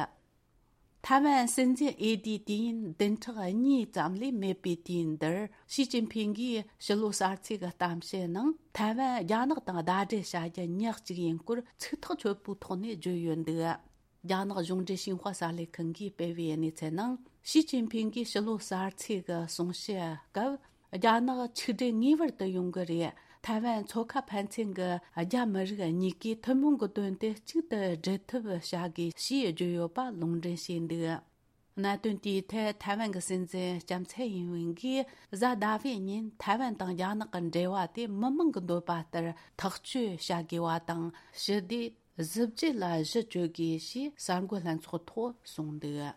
ཐའེ་ཝན་སྲིད་འཛིན་འོས་བསྡུའི་དུས་ཡུན་བདུན་ཕྲག་གཉིས་ཙམ་ལས་མེད་པའི་དུས་ཡུན་འདིར། ཞི་ཅིན་ཕིང་གིས་ཕྱི་ལོ་གསར་ཚེས་ཀྱི་གཏམ་བཤད་ནང་། ཐའེ་ཝན་རྒྱ་ནག་དང་ཟླ་སྒྲིལ་བྱ་རྒྱུ་ཉག་གཅིག་ཡིན་སྐོར་ཚིག་ཐག་ཆོད་པོའི་ཐོག་ནས་བརྗོད་ཡོད་འདུག་རྒྱ་ནག་གཞུང་འབྲེལ་ཤིན་ཧྭ་གསར་ལས་ཁང་གིས་སྤེལ་བའི་གནས་ཚུལ་ནང་། ཞི་ཅིན་ཕིང་གིས་ཕྱི་ལོ་གསར་ཚེས་ཀྱི་གསུང་བཤད་སྐབས། རྒྱ་ནག་ཆིག་སྒྲིལ་ངེས་པར་དུ་ཡོང་གི་རེད། ཐའེ་ཝན་མཚོ་ཁ་ཕན་ཚུན་གྱི་རྒྱ་མི་རིགས་གཉིས་ཀས་ཐུན་མོང་གི་དོན་དུ་གཅིག་ཏུ་སྒྲིལ་ཐབས་བྱ་དགོས་ཞེས་བརྗོད་ཡོད་པ་ལུང་འདྲེན་བྱས་འདུག་གནད་དོན་དེའི་ཐད་ཐའེ་ཝན་གྱི་སྲིད་འཛིན་ལྕམ་ཚའེ་ཡིན་ཝེན་གྱིས་གཟའ་ཟླ་བའི་ཉིན་ཐའེ་ཝན་དང་རྒྱ་ནག་གི་འབྲེལ་བ་དེ་མི་མང་གི་འདོད་པ་ལྟར་ཐག་གཅོད་བྱ་དགོས་པ་དང་། ཞི་བདེ་གཟི་བརྗིད་ལ་གཞི་བཅོལ་དགོས་ཞེས་གསར་འགོད་ལྷན་ཚོགས་ཐོག་གསུངས་འདུག་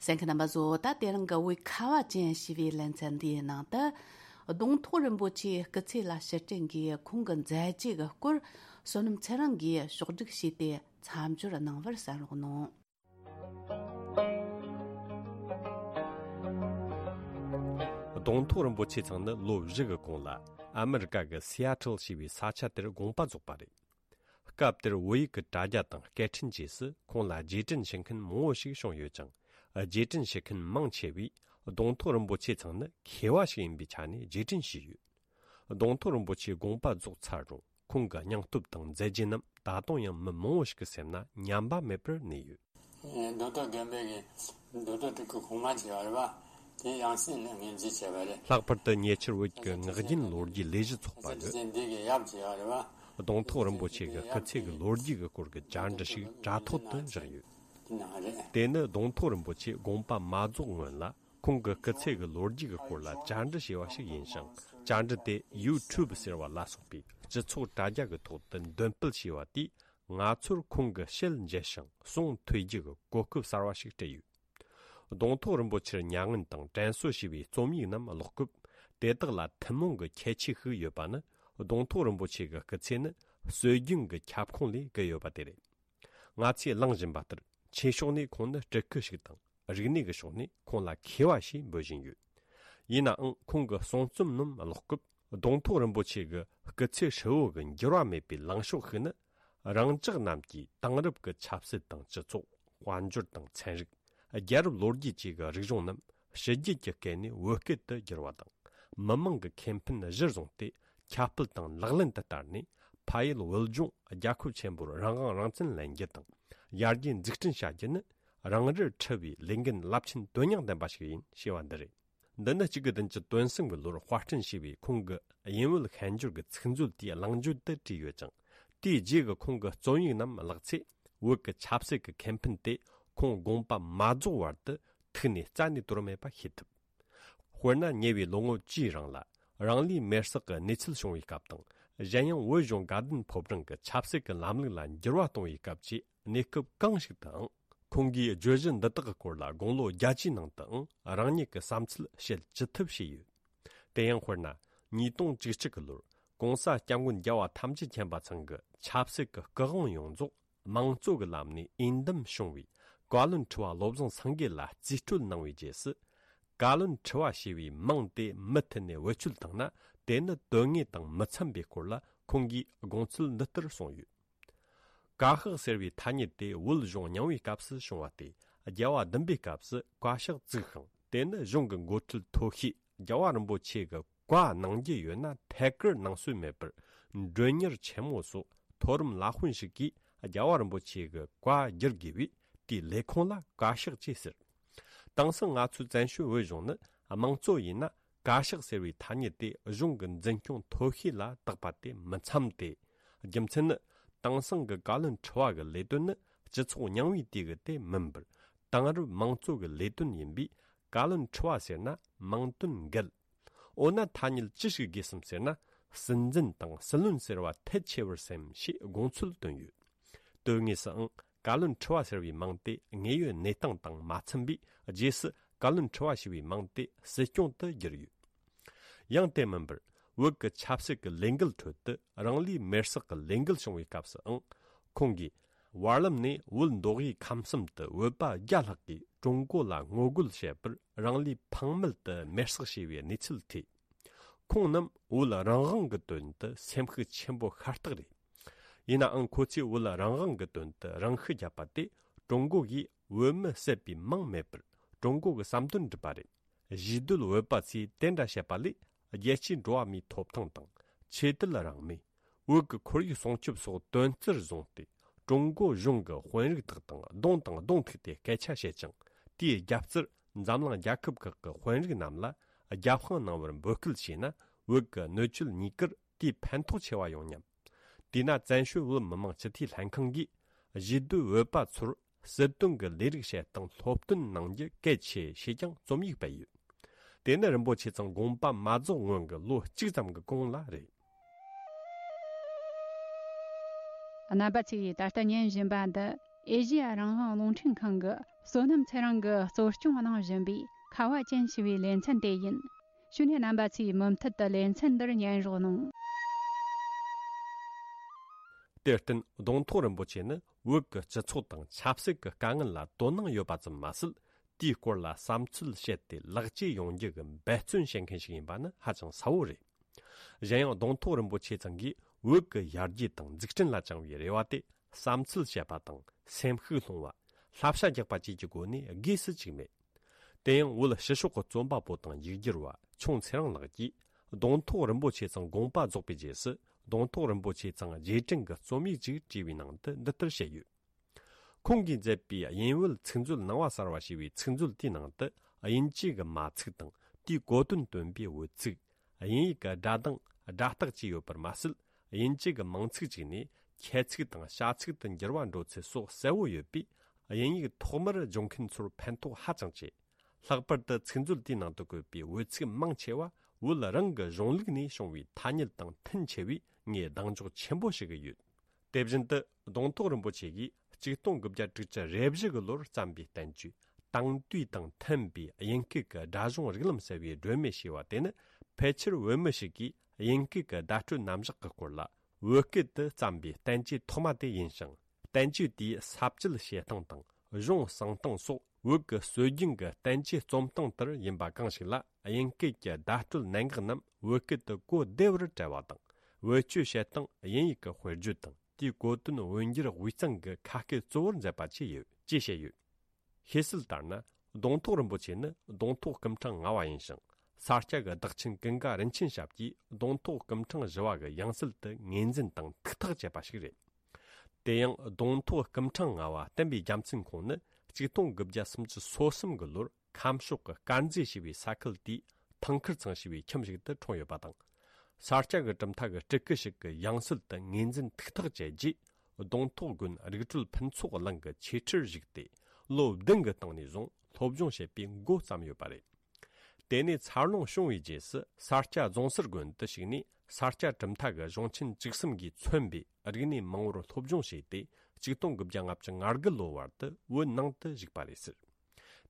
གསན་མཁན་རྣམ་པ་ཚོ། ད་དེ་རིང་གི་བོད་ཁ་བ་ཅན་ཞེས་པའི་ལེ་ཚན་འདིའི་ནང་དུ། གདོང་ཐོག་རིན་པོ་ཆེའི་སྐུ་ཚེ་ལ་ཕྱིར་དྲན་གྱིས་ཁོང་གི་མཛད་རྗེས་ཀྱི་སྐོར་བསོད་ནམས་ཚེ་རིང་གིས་ཕྱོགས་བསྒྲིགས་བྱས་ཏེ་མཚམས་སྦྱོར་གནང་བར་གསན་རོགས་གནང་། གདོང་ཐོག་རིན་པོ་ཆེ་ཚང་ནི་ལོ་བཞི་གི་གོང་ལ་ཨ་མི་རི་ཀ་གི་སི་ཨ་ཊལ་ཞེས་པའི་ས་ཆ་དེར་དགོངས་པ་རྫོགས་པ་རེད། སྐབས་དེར་བོད་ཡིག་གི་དྲ་རྒྱ་དང་སྐད་འཕྲིན་བཅས་སུ་ཁོང་ལ་རྗེས་དྲན་བྱེད་མཁན་མང་བོ་ཞིག་བྱུང་ཡོད་ཅིང་། རྗེས་དྲན་བྱེད་མཁན་མང་ཆེ་བས་གདོང་ཐོག་རིན་པོ་ཆེ་ཚང་ནི་མཁས་པ་ཞིག་ཡིན་པའི་ཆ་ནས་རྗེས་དྲན་བྱས་ཡོད། གདོང་ཐོག་རིན་པོ་ཆེ་དགོངས་པ་རྫོགས་ཚར་རུང་ཁོང་གི་སྙིང་སྟོབས་དང་མཛད་རྗེས་རྣམས་ད་དུང་ཡང་མི་མང་བོ་ཞིག་གི་སེམས་ན་ཉམས་པ་མེད་པར་གནས་ཡོད། རྡོ་ཐོག་དགོན་པའི་གི་རྡོ་ཐོག་ཕྲུ་གུ་གོང་མ་བྱས་པ་རེད་པ། དེ་ཡང་སྲིད་ལ་ངོས་འཛིན་བྱས་པ་རེད། ལྷག་པར་དུ་ཉེ་ཆར་བོད་ཀྱི་ངག་རྒྱུན་ལོ་རྒྱུས་ལས་གཞི་ཚོགས་པ་གིས་འདི་གི་ཡབ་བྱས་པ་རེད་པ། གདོང་ཐོག་རིན་པོ་ཆེ་གི་སྐུ་ཚེ་གི་ལོ་རྒྱུས་ཀྱི་སྐོར་གྱི་བཅར་འདྲི་ཞིག་དྲ་ཐོག་ཏུ་བཞག་ཡོད། དེ་ནི་གདོང་ཐོག་རིན་པོ་ཆེ་དགོངས་པ་མ་རྫོགས་སྔོན་ལ་ཁོང་གི་སྐུ་ཚེ་གི་ལོ་རྒྱུས་ཀྱི་སྐོར་ལ་བཅར་འདྲི་བྱས་པ་ཞིག་ཡིན་ཞིང་། བཅར་འདྲི་དེ་ཡུ་ཊུབ་ཟེར་བ་ལ་སོགས་པའི་སྤྱི་ཚོགས་དྲ་རྒྱ་གི་ཐོག་ཏུ་འདོན་སྤེལ་བྱས་པ་དེས་ང་ཚོར་ཁོང་གི་ཞལ་མཇལ་ཞིང་ཟུང་ཐོས་རྒྱུ་གི་གོ་སྐབས་གསར་བ་ཞིག་སྤྲད་ཡོད། གདོང་ཐོག་རིན་པོ་ཆེར་མྱ་ངན་དང་དྲན་གསོ་ཞེས་པའི་རྩོམ་ཡིག་རྣམས་ཀློག་སྐབས། དེ་དག་ལ་ཐུན་མོང་གི་ཁྱད་ཆོས་ཤིག་ཡོད་པ་ནི། གདོང་ཐོག་རིན་པོ་ཆེ་གི་སྐུ་ཚེ་ནི་སྲོལ་རྒྱུན་གྱི་ཁྱབ་ཁོངས་ལས་བརྒལ་ཡོད་པ་དེ་རེད། ང་ཚོས་གླེང་བཞིན་པ་ལྟར་ཆོས་ཕྱོགས་ནས་ཁོང་ནི་སྤྲུལ་སྐུ་ཞིག་དང་། རིག་གནས་ཀྱི་ཕྱོགས་ནས་ཁོང་ལ་མཁས་པ་ཞེས་འབོད་བཞིན་ཡོད། ཡིན་ནའང་ཁོང་གི་གསུང་རྩོམ་རྣམས་ཀློག་སྐབས། གདོང་ཐོག་རིན་པོ་ཆེ་གི་སྐུ་ཚེ་ཧྲིལ་བོ་གི་འགྱུར་བ་མེད་པའི་ལངས་ཕྱོགས་ཤིག་ནི། རང་ཅག་རྣམས་ཀྱིས་དེང་རབས་ཀྱི་ཆབ་སྲིད་དང་སྤྱི་ཚོགས། དཔལ་འབྱོར་དང་ཚན་རིག་རྒྱལ་རབས་ལོ་རྒྱུས་བཅས་ཀྱི་རིག་གཞུང་རྣམས་ཕྱི་རྒྱལ་གྱི་སྐད་ནས་བོད་སྐད་དུ་བསྒྱུར་བ་དང་། མི་མང་གི་ཁེ་ཕན་གཞིར་བཟུང་སྟེ་ཁྱབ་སྤེལ་དང་ལག་ལེན་དུ་བསྟར་ནས། ཕ་ཡུལ་བོད་ལྗོངས་རྒྱལ་ཁབ་ཆེན་པོར་རང་དབང་རང་བཙན་ལེན་རྒྱུ་དང་། ཡར་རྒྱས་འཛུགས་སྐྲུན་བྱ་རྒྱུ་ནི། རང་རིར་འཁྲི་བའི་ལས་འགན་རླབས་ཆེན་དོན་སྙིང་ལྡན་པ་ཞིག་ཡིན་ཞེས་པ་འདི་རེད། འདི་ནི་གཅིག་དགུ་བདུན་ཅུ་དོན་གསུམ་གྱི་ལོར་དཔར་སྐྲུན་བྱས་པའི་ཁོང་གི་དབྱིན་བོད་ཤན་སྦྱོར་གྱི་ཚིག་མཛོད་དེའི་གླེང་བརྗོད་དུ་བྲིས་ཡོད་ཅིང་། དེའི་རྗེས་ཀྱི་ཁོང་གི་རྩོམ་ཡིག་རྣམས་བཀླགས་ཚེ། བོད་ཀྱི་ཆབ་སྲིད་ཀྱི་ཁེ་ཕན་དེ་ཁོང་དགོངས་པ་མ་རྫོགས་བར་དུ་ཐུགས་ནས་རྩ་ནས་དོར་མེད་པ་ཤེས་ཐུབ། དཔེར་ན། ཉེ་བའི་ལོ་ངོ་བཅུའི་རིང་ལ་རང་ལུས་མེར་སྲེག་གི་གནས་ཚུལ་བྱུང་བའི་སྐབས་དང་། གཞན་ཡང་བོད་གཞུང་དགའ་ལྡན་ཕོ་བྲང་གི་ཆབ་སྲིད་ཀྱི་ལམ་ལུགས་ལ་འགྱུར་བ་གཏོང་བའི་སྐབས་ཀྱི་གནས་སྐབས་གང་ཞིག་ཏུའང་། ཁོང་གིས་བརྗོད་གཞི་འདི་དག་གི་སྐོར་ལ་དགུང་ལོ་བརྒྱད་ཅུའི་ནང་དུའང་རང་ཉིད་ཀྱི་བསམ་ཚུལ་བཤད་ཅི་ཐུབ་བྱས་ཡོད། དེ་ཡང་དཔེར་ན། ཉིས་སྟོང་བཅུ་གཅིག་གི་ལོར་༸གོང་ས་༸སྐྱབས་མགོན་རྒྱལ་བ་ཐམས་ཅད་མཁྱེན་པ་ཚང་གི་ཆབ་སྲིད་ཀྱི་སྐུ་དབང་ཡོངས་རྫོགས་དམངས་གཙོ་གི་ལམ་ནས་འོས་འདེམས་བྱུང་བའི་བཀའ་བློན་ཁྲི་པ་བློ་བཟང་སེང་གེ་ལ་རྩིས་སྤྲོད་གནང་བའི་རྗེས་སུ། བཀའ་བློན་ཁྲི་པ་ཞེས་པའི་མིང་དེ་མུ་མཐུད་ནས་བེད་སྤྱོད་བཏང་ན། དེ་ནི་དོན་དངོས་དང་མི་འཚམ་པའི་སྐོར་ལ་ཁོང་གིས་དགོངས་ཚུལ་འདི་ལྟར་གསུངས་ཡོད། བཀའ་ཤག་ཟེར་བའི་ཐ་སྙད་དེ་བོད་གཞུང་རྙིང་བའི་སྐབས་སུ་བྱུང་བ་སྟེ། རྒྱལ་བ་བདུན་པའི་སྐབས་སུ་བཀའ་ཤག་བཙུགས་ཤིང་། དེ་ནི་གཞུང་གི་འགོ་ཁྲིད་མཐོ་ཤོས་རྒྱལ་བ་རིན་པོ་ཆེ་གི་བཀའ་གནང་རྒྱུ་ཡོད་ན་ཐད་ཀར་གནང་སྲོལ་མེད་པར། མགྲོན་གཉེར་ཆེན་མོ་སོགས་མཐོ་རིམ་བླ་དཔོན་ཞིག་གིས་རྒྱལ་བ་རིན་པོ་ཆེ་གི་བཀའ་བསྒྱུར་དགོས་པས། དེའི་ལས་ཁུངས་ལ་བཀའ་ཤག་ཅེས་ཟེར། དེང་སང་ང་ཚོའི་བཙན་བྱོལ་བོད་གཞུང་ནི་དམངས་གཙོ་ཡིན་ན། བཀའ་ཤག་ཟེར་བའི་ཐ་སྙད་དེ་གཞུང་གི་འཛིན་སྐྱོང་མཐོ་ཤོས་ལ་བཏགས་པ་དེ་མི་འཚམ་སྟེ། རྒྱུ་མཚན་ནི། དེང་སང་གི་བཀའ་བློན་ཁྲི་པ་གི་ལས་དོན་ནི་སྤྱི་ཚོགས་རྙིང་བའི་དུས་ཀྱི་དེ་མིན་པར། དེང་རབས་དམངས་གཙོ་གི་ལས་དོན་ཡིན་པས། བཀའ་བློན་ཁྲི་པ་ཟེར་ན་དམངས་དོན་འགལ། འོ་ན་ཐ་སྙད་ཅི་ཞིག་དགོས་སམ་ཟེར་ན། སྲིད་འཛིན་དང་སྲིད་བློན་ཟེར་བ་ཐལ་ཆེ་བར་སེམས་ཞེས་དགོངས་ཚུལ་བཏོན་ཡོད། དོན་དངོས་སུའང་བཀའ་བློན་ཁྲི་པ་ཟེར་བའི་མིང་དེ་དངོས་ཡོད་གནས་སྟངས་དང་མ་འཚམ་པས། རྗེས་སུ་བཀའ་བློན་ཁྲི་པ་ཞེས་པའི་མིང་དེ་སྲིད་སྐྱོང་དུ་བསྒྱུར་ཡོད། ཡང་དེ་མིན་པར། བོད་ཀྱི་ཆབ་སྲིད་ཀྱི་ལས་འགུལ་ཁྲོད་དུ་རང་ལུས་མེར་སྲེག་གི་ལས་འགུལ་བྱུང་བའི་སྐབས་སུའང་། ཁོང་གིས་བར་ལམ་ནས་བོད་མདོ་དབུས་ཁམས་གསུམ་དུ་བོད་པ་བརྒྱ་ལྷག་གིས་ཀྲུང་གོ་ལ་ངོ་རྒོལ་བྱེད་པར་རང་ལུས་ཕངས་མེད་དུ་མེར་སྲེག་བྱས་པའི་གནས་ཚུལ་ཐོས། ཁོང་རྣམས་བོད་རང་དབང་གི་དོན་དུ་སེམས་ཤུགས་ཆེན་པོ་ཤ་སྟག་རེད། ཡིན་ནའང་ཁོ་ཚོས་བོད་རང་དབང་གི་དོན་དུ་རང་ཤི་བརྒྱབ་པ་དེ་ཀྲུང་གོ་གིས་བོད་མི་བསད་པའི་མིང་མེད་པར་ཀྲུང་གོ་གི་བསམ་དོན་སྒྲུབ་པ་རེད། གཞིས་སྡོད་བོད་པ་ཚོས་དེ་འདྲ་བཤད་པ་ལས། རྒྱལ་སྤྱིའི་འགྲོ་བ་མིའི་ཐོབ་ཐང་དང་། ཆོས་དད་རང་མོས། བོད་ཀྱི་ཁོར་ཡུག་སྲུང་སྐྱོབ་སོགས་དོན་རྩིར་བཟུང་སྟེ། ཀྲུང་གོ་གཞུང་གི་དཔོན་རིགས་དག་དང་གདོང་དང་གདོང་ཐུག་སྟེ་སྐད་ཆ་བཤད་ཅིང་། དེའི་རྒྱབ་རྩར་འཛམ་གླིང་རྒྱལ་ཁབ་ཁག་གི་དཔོན་རིགས་རྣམས་ལ་རྒྱབ་དཔུང་གནང་བར་འབོད་སྐུལ་བྱས་ན། བོད་ཀྱི་གནོད་སྐྱེལ་གཉིས་ཀར་དེའི་ཕན་ཐོགས་ཆེ་བ་ཡོང་སྙམ། དེས་ན་བཙན་བྱོལ་བོད་མི་མང་སྤྱི་འཐུས་ལྷན་ཁང་གིས་གཞིས་སྡོད་བོད་པ་ཚོར་སྲིད་དོན་གྱི་ལས་རིགས་བྱེད་སྟངས་སློབ་སྟོན་གནང་རྒྱུ་གལ་ཆེ་ཞེས་ཀྱང་རྩོམ་ཡིག་སྤེལ་ཡོད། དེ་ནི་རིན་པོ་ཆེ་ཚང་དགོངས་པ་མ་རྫོགས་སྔོན་གྱི་ལོ་གཅིག་ཙམ་གྱི་གོང་ལ་རེད། རྣམ་པ་ཚོས་ད་ལྟ་ཉན་བཞིན་པ་འདི་ཨེ་ཤེ་ཡ་རང་དབང་རླུང་འཕྲིན་ཁང་གི་བསོད་ནམས་ཚེ་རིང་གིས་གཙོ་སྐྱོང་གནང་བཞིན་པའི་ཁ་བ་ཅན་ཞེས་པའི་ལེ་ཚན་དེ་ཡིན། ཞུ་ནས་རྣམ་པ་ཚོས་མུ་མཐུད་དུ་ལེ་ཚན་འདིར་ཉན་རོགས་གནང་། དེར་བརྟེན་གདོང་ཐོག་རིན་པོ་ཆེ་ནི་བོད་ཀྱི་སྤྱི་ཚོགས་དང་ཆབ་སྲིད་ཀྱི་དཀའ་ངལ་ལ་དོ་སྣང་ཡོད་པ་ཙམ་མ་ཟད། དེའི་སྐོར་ལ་བསམ་ཚུལ་བཤད་དེ་ལེགས་བཅོས་ཡོང་རྒྱུ་གི་འབད་བརྩོན་བྱེད་མཁན་ཞིག་ཡིན་པ་ནི་ཧ་ཅང་གསལ་བོ་རེད། གཞན་ཡང་གདོང་ཐོག་རིན་པོ་ཆེ་ཚང་གིས་བོད་ཀྱི་ཡར་རྒྱས་དང་འཛུགས་སྐྲུན་ལ་བཅངས་པའི་རེ་བ་དེ་བསམ་ཚུལ་བཤད་པ་དང་སེམས་ཤུགས་སློང་བ། བསླབ་བྱ་རྒྱག་པ་བཅས་ཀྱི་སྒོ་ནས་དགོས་སུ་བཅུག་མེད། དེ་ཡང་བོད་ཕྱི་ཕྱོགས་ཀྱི་རྩོམ་པ་པོ་དང་ཡིག་སྒྱུར་བ་ཁྱུང་ཚེ་རིང་ལགས་ཀྱིས་གདོང་ཐོག་རིན་པོ་ཆེ་ཚང་དགོངས་པ་རྫོགས་པའི་རྗེས་སུ་གདོང་ཐོག་རིན་པོ་ཆེ་ཚང་རྗེས་དྲན་གྱི་རྩོམ་ཡིག་ཅིག་བྲིས་པའི་ནང་དུ་འདི་ལྟར་བཤད་ཡོད། ཁོང་གིས་མཛད་པའི་དབྱིན་བོད་ཚིག་མཛོད་ནང་པ་གསར་བ་ཞེས་པའི་ཚིག་མཛོད་དེའི་ནང་དུ་དབྱིན་ཇི་གི་མ་ཚིག་དང་དེའི་གོ་དོན་སྟོན་པའི་འོད་ཚིག་དབྱིན་ཡིག་གི་སྒྲ་གདངས་སྒྲ་རྟགས་བཅས་ཡོད་པར་མ་ཟད། དབྱིན་ཇི་གི་མིང་ཚིག་ཅིག་ནས་ཁྱད་ཚིག་དང་བྱ་ཚིག་ཏུ་འགྱུར་བ་འགྲོ་ཚུལ་སོགས་གསལ་བོ་ཡོད་པས། དབྱིན་ཡིག་ཐོག་མར་སྦྱོང་མཁན་ཚོར་ཕན་ཐོགས་ཧ་ཅང་ཆེ། ལྷག་པར་དུ་ཚིག་མཛོད་དེའི་ནང་དུ་བཀོད་པའི་འོད་ཚིག་མང་ཆེ་བ་བོད་རང་གི་གཞུང་ལུགས་ནས་བྱུང་བའི་ཐ་སྙད་དང་མཐུན་ཆེ་བས། ངས་གདེང་འཇོག་ཆེན་པོ་བྱེད་ཀྱི་ཡོད། དེ་བཞིན་དུ་གདོང་ཐོག་རིན་པོ་ཆེ་གིས་ཆིག་སྟོང་དགུ་བརྒྱ་དྲུག་ཅུ་རེ་བཞི་གི་ལོར་བརྩམས་པའི་བསྟན་བཅོས་དེང་དུས་དང་མཐུན་པའི་དབྱིན་སྐད་ཀྱི་སྒྲ་གཞུང་རིགས་ལམ་ཟེར་བའི་སྒྲོན་མེ་ཞེས་པ་དེ་ནི། ཕལ་ཆེར་བོད་མི་ཞིག་གིས་དབྱིན་སྐད་ཀྱི་བརྡ་སྤྲོད་རྣམ་གཞག་གི་སྐོར་ལ་བོད་སྐད་དུ་བརྩམས་པའི་བསྟན་བཅོས་ཐོག་མ་དེ་ཡིན་ཞིང་། བསྟན་བཅོས་དེའི་ས་བཅད་བཤད་སྟངས་དང་གཞུང་གསང་སྟངས་སོགས་བོད་ཀྱི་སྲོལ་རྒྱུན་གྱི་བསྟན་བཅོས་རྩོམ་སྟངས་ལྟར་ཡིན་པ་གང་ཞིག་ལ། དབྱིན་སྐད་ཀྱི་བརྡ་སྤྲོད་གནད་འགག་རྣམས་བོད་སྐད་དུ་གོ་བདེ་བར་བཀྲལ་བ་དང་། བེད་སྤྱོད་བྱེད་སྟངས་དབྱིན་ཡིག་གི་དཔེར་བརྗོད་དང་། དེའི་གོ་དོན་འོས་འགྱུར་དབུས་གཙང་གི་ཁ་སྐད་གཙོ་བོར་མཛད་པ་བཅས་ཡོད་ཅེས་བཤད་ཡོད། ཤེས་གསལ་ལྟར་ན། གདོང་ཐོག་རིན་པོ་ཆེ་ནི་གདོང་ཐོག་སྐུ་ཕྲེང་ལྔ་བ་ཡིན་ཞིང་། ས་སྐྱ་གི་བདག་ཆེན་ཀུན་དགའ་རིན་ཆེན་ཞབས་ཀྱིས་གདོང་ཐོག་སྐུ་ཕྲེང་བཞི་བ་གི་ཡང་སྲིད་དུ་ངོས་འཛིན་དང་ཐུགས་ཐག་བཅད་པ་ཞིག་རེད། དེ་ཡང་གདོང་ཐོག་སྐུ་ཕྲེང་ལྔ་བ་བསྟན་པའི་རྒྱལ་མཚན་ཁོང་ནི་ཆིག་སྟོང་དགུ་བརྒྱ་སུམ་ཅུ་སོ་གསུམ་གྱི་ལོར་ཁམས་ཕྱོགས་ཀྱི་དཀར་མཛེས་ཞེས་པའི་ས་ཁུལ་དེའི་ཐང་ཁུར་ཚང་ཞེས་པའི་ཁྱིམ་ཞིག་ཏུ་འཁྲུངས་ཡོད་པ་དང་། ས་སྐྱ་གི་གྲུབ་མཐའ་གི་སྤྲུལ་སྐུ་ཞིག་གི་ཡང་སྲིད་དུ་ངོས་འཛིན་ཐུགས་ཐག་བཅད་རྗེས། གདོང་ཐོག་དགོན་རིག་གྲོལ་ཕུན་ཚོགས་གླིང་གི་ཆོས་ཁྲིར་བཞུགས་ཏེ། ལོ་བདུན་གྱི་སྟེང་ནས་བཟུང་སློབ་སྦྱོང་བྱེད་པའི་འགོ་བརྩམས་ཡོད་པ་རེད། དེ་ནས་འཚར་ལོངས་བྱུང་བའི་རྗེས་སུ་ས་སྐྱ་རྫོང་སར་དགོན་དུ་ཞུགས་ནས། ས་སྐྱ་གྲུབ་མཐའ་གི་གཞུང་ཆེན་བཅུ་གསུམ་གྱིས་མཚོན་པའི་རིག་གནས་མང་བོར་སློབ་སྦྱོང་བྱས་ཏེ། ཆིག་སྟོང་དགུ་བརྒྱ་ལྔ་བཅུ་ང་དགུ་ལོ་བར་དུ་བོད་ནང་དུ་བཞུགས་པ་རེད་ཟེར།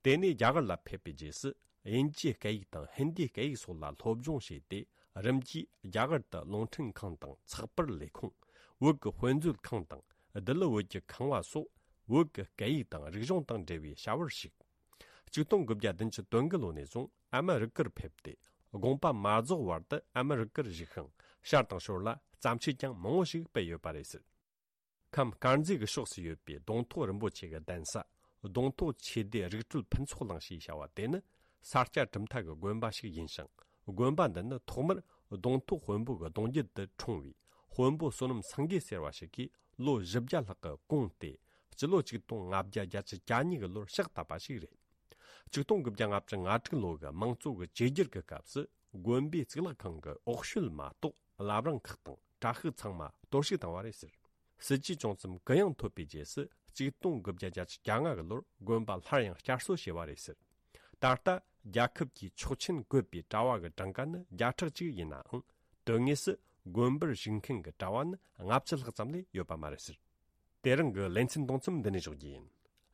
དེ་ནས་རྒྱ་གར་ལ་ཕེབས་པའི་རྗེས་སུ། དབྱིན་ཇིའི་སྐད་ཡིག་དང་ཧིན་དིའི་སྐད་ཡིག་སོགས་ལ་སློབ་སྦྱོང་བྱས་ཏེ། རིམ་གྱིས་རྒྱ་གར་དུ་རླུང་འཕྲིན་ཁང་དང་ཚགས་པར་ལས་ཁུངས། བོད་ཀྱི་དཔེ་མཛོད་ཁང་དང་། ལྡི་ལི་བོད་ཀྱི་ཁང་བ་སོགས། བོད་ཀྱི་སྐད་ཡིག་དང་རིག་གཞུང་དང་འབྲེལ་བའི་བྱ་བར་ཞུགས། ཆིག་སྟོང་དགུ་བརྒྱ་བདུན་ཅུ་དོན་དགུ་ལོ་ནས་བཟུང་ཨ་མི་རི་ཀར་ཕེབས་ཏེ། དགོངས་པ་མ་རྫོགས་བར་དུ་ཨ་མི་རི་ཀར་བཞུགས་ཤིང་། ཤར་དང་ཞོར་ལ་བརྩམས་ཆོས་ཀྱང་མང་བོ་ཞིག་སྤེལ་ཡོད་པ་རེད་ཟེར། ཁམས་དཀར་མཛེས་ཀྱི་ཕྱོགས་སུ་ཡོད་པའི་གདོང་ཐོག་རིན་པོ་ཆེ་གི་གདན་ས། གདོང་ཐོག་ཆོས་སྡེ་རིག་གྲོལ་ཕུན་ཚོགས་གླིང་ཞེས་བྱ་བ་དེ་ནི། ས་སྐྱ་གྲུབ་མཐའ་གི་དགོན་པ་ཞིག་ཡིན་ཞིང་། དགོན་པ་འདི་ནི་ཐོག་མར་གདོང་ཐོག་དཔོན་པོ་གི་གདུང་རྒྱུད་དུ་འཁྲུངས་པའི་དཔོན་པོ་བསོད་ནམས་སེང་གེ་ཟེར་བ་ཞིག་གིས་ལོ་བཞི་བརྒྱ་ལྷག་གི་གོང་སྟེ། སྤྱི་ལོ་ཆིག་སྟོང་ལྔ་བརྒྱ་གྱ་གཉིས་གི་ལོར་ཕྱག་བཏབ་པ་ཞིག་རེད། ཆིག་སྟོང་དགུ་བརྒྱ་ལྔ་བཅུ་ང་དྲུག་ལོ་གི་མང་གཙོ་གི་བཅོས་བསྒྱུར་གྱི་སྐབས་སུ། དགོན་པའི་གཙུག་ལག་ཁང་གི་འོག་ཤོད་མ་གཏོགས་བླ་བྲང་ཁག་དང་གྲྭ་ཤག་ཚང་མ་གཏོར་བཤིག་བཏང་བ་རེད་ཟེར། སྲིད་ཇུས་བྱུང་ཙམ་གུ་ཡངས་ཐོབ་པའི་རྗེས་སུ། ཆིག་སྟོང་དགུ་བརྒྱ་གྱ་ལྔ་གི་ལོར་དགོན་པ་སླར་ཡང་བསྐྱར་གསོ་བྱས་པ་རེད་ཟེར། ད་ལྟ་རྒྱལ་ཁབ་ཀྱི་ཆོག་མཆན་བཀོད་པའི་གྲྭ་བ་གི་གྲངས་ཀ་ནི་བརྒྱ་ཕྲག་གཅིག་ཡིན་ནའང་། དོན་དངོས་སུ་དགོན་པར་བཞུགས་མཁན་གྱི་གྲྭ་བ་ནི་ལྔ་བཅུ་ལྷག་ཙམ་ལས་ཡོད་པ་མ་རེད་ཟེར། དེ་རིང་གི་ལེ་ཚན་གཏོང་མཚམས་འདི་ནས་འཇོག་རྒྱུ་ཡིན།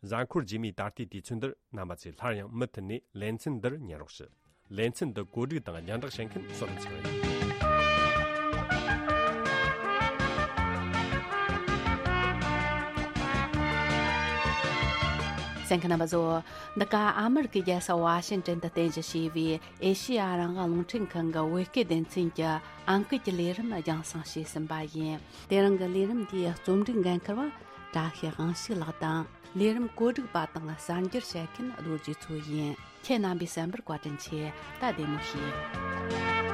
གཟའ་འཁོར་རྗེས་མའི་ད་ལྟའི་དུས་ཚོད་འདིར་རྣམ་པ་ཚོས་སླར་ཡང་མུ་མཐུད་ནས་ལེ་ཚན་འདིར་ཉན་རོགས་ཞུ། ལེ་ཚན་འདི་གོ་སྒྲིག་དང་རྒྱང་བསྒྲགས་བྱེད་མཁན་བསོད་ནམས་ཚེ་རིང་ཡིན། གསན་མཁན་རྣམ་པ་ཚོ། འདི་ག་ཨ་མི་རི་ཀའི་རྒྱལ་ས་ཝ་ཤིང་ཏོན་དུ་རྟེན་གཞི་བྱས་པའི་ཨེ་ཤེ་ཡ་རང་དབང་རླུང་འཕྲིན་ཁང་གི་བོད་སྐད་སྡེ་ཚན་གྱི་ཨང་ཀི་གི་ལས་རིམ་རྒྱང་སྲིང་བྱས་ཟིན་པ་ཡིན། དེ་རིང་གི་ལས་རིམ་འདིའི་རྩོམ་སྒྲིག་འགན་འཁུར་བ་བཀྲ་ཤིས་དབང་ཕྱུག་ལགས་དང་། ལས་རིམ་གོ་སྒྲིག་པ་དང་གསར་འགྱུར་བཤད་མཁན་རྡོ་རྗེ་མཚོ་ཡིན། ཁྱེད་རྣམ་པས་གསན་པར་བཀའ་དྲིན་ཆེ། ད་བདེ་མོ་བྱོས།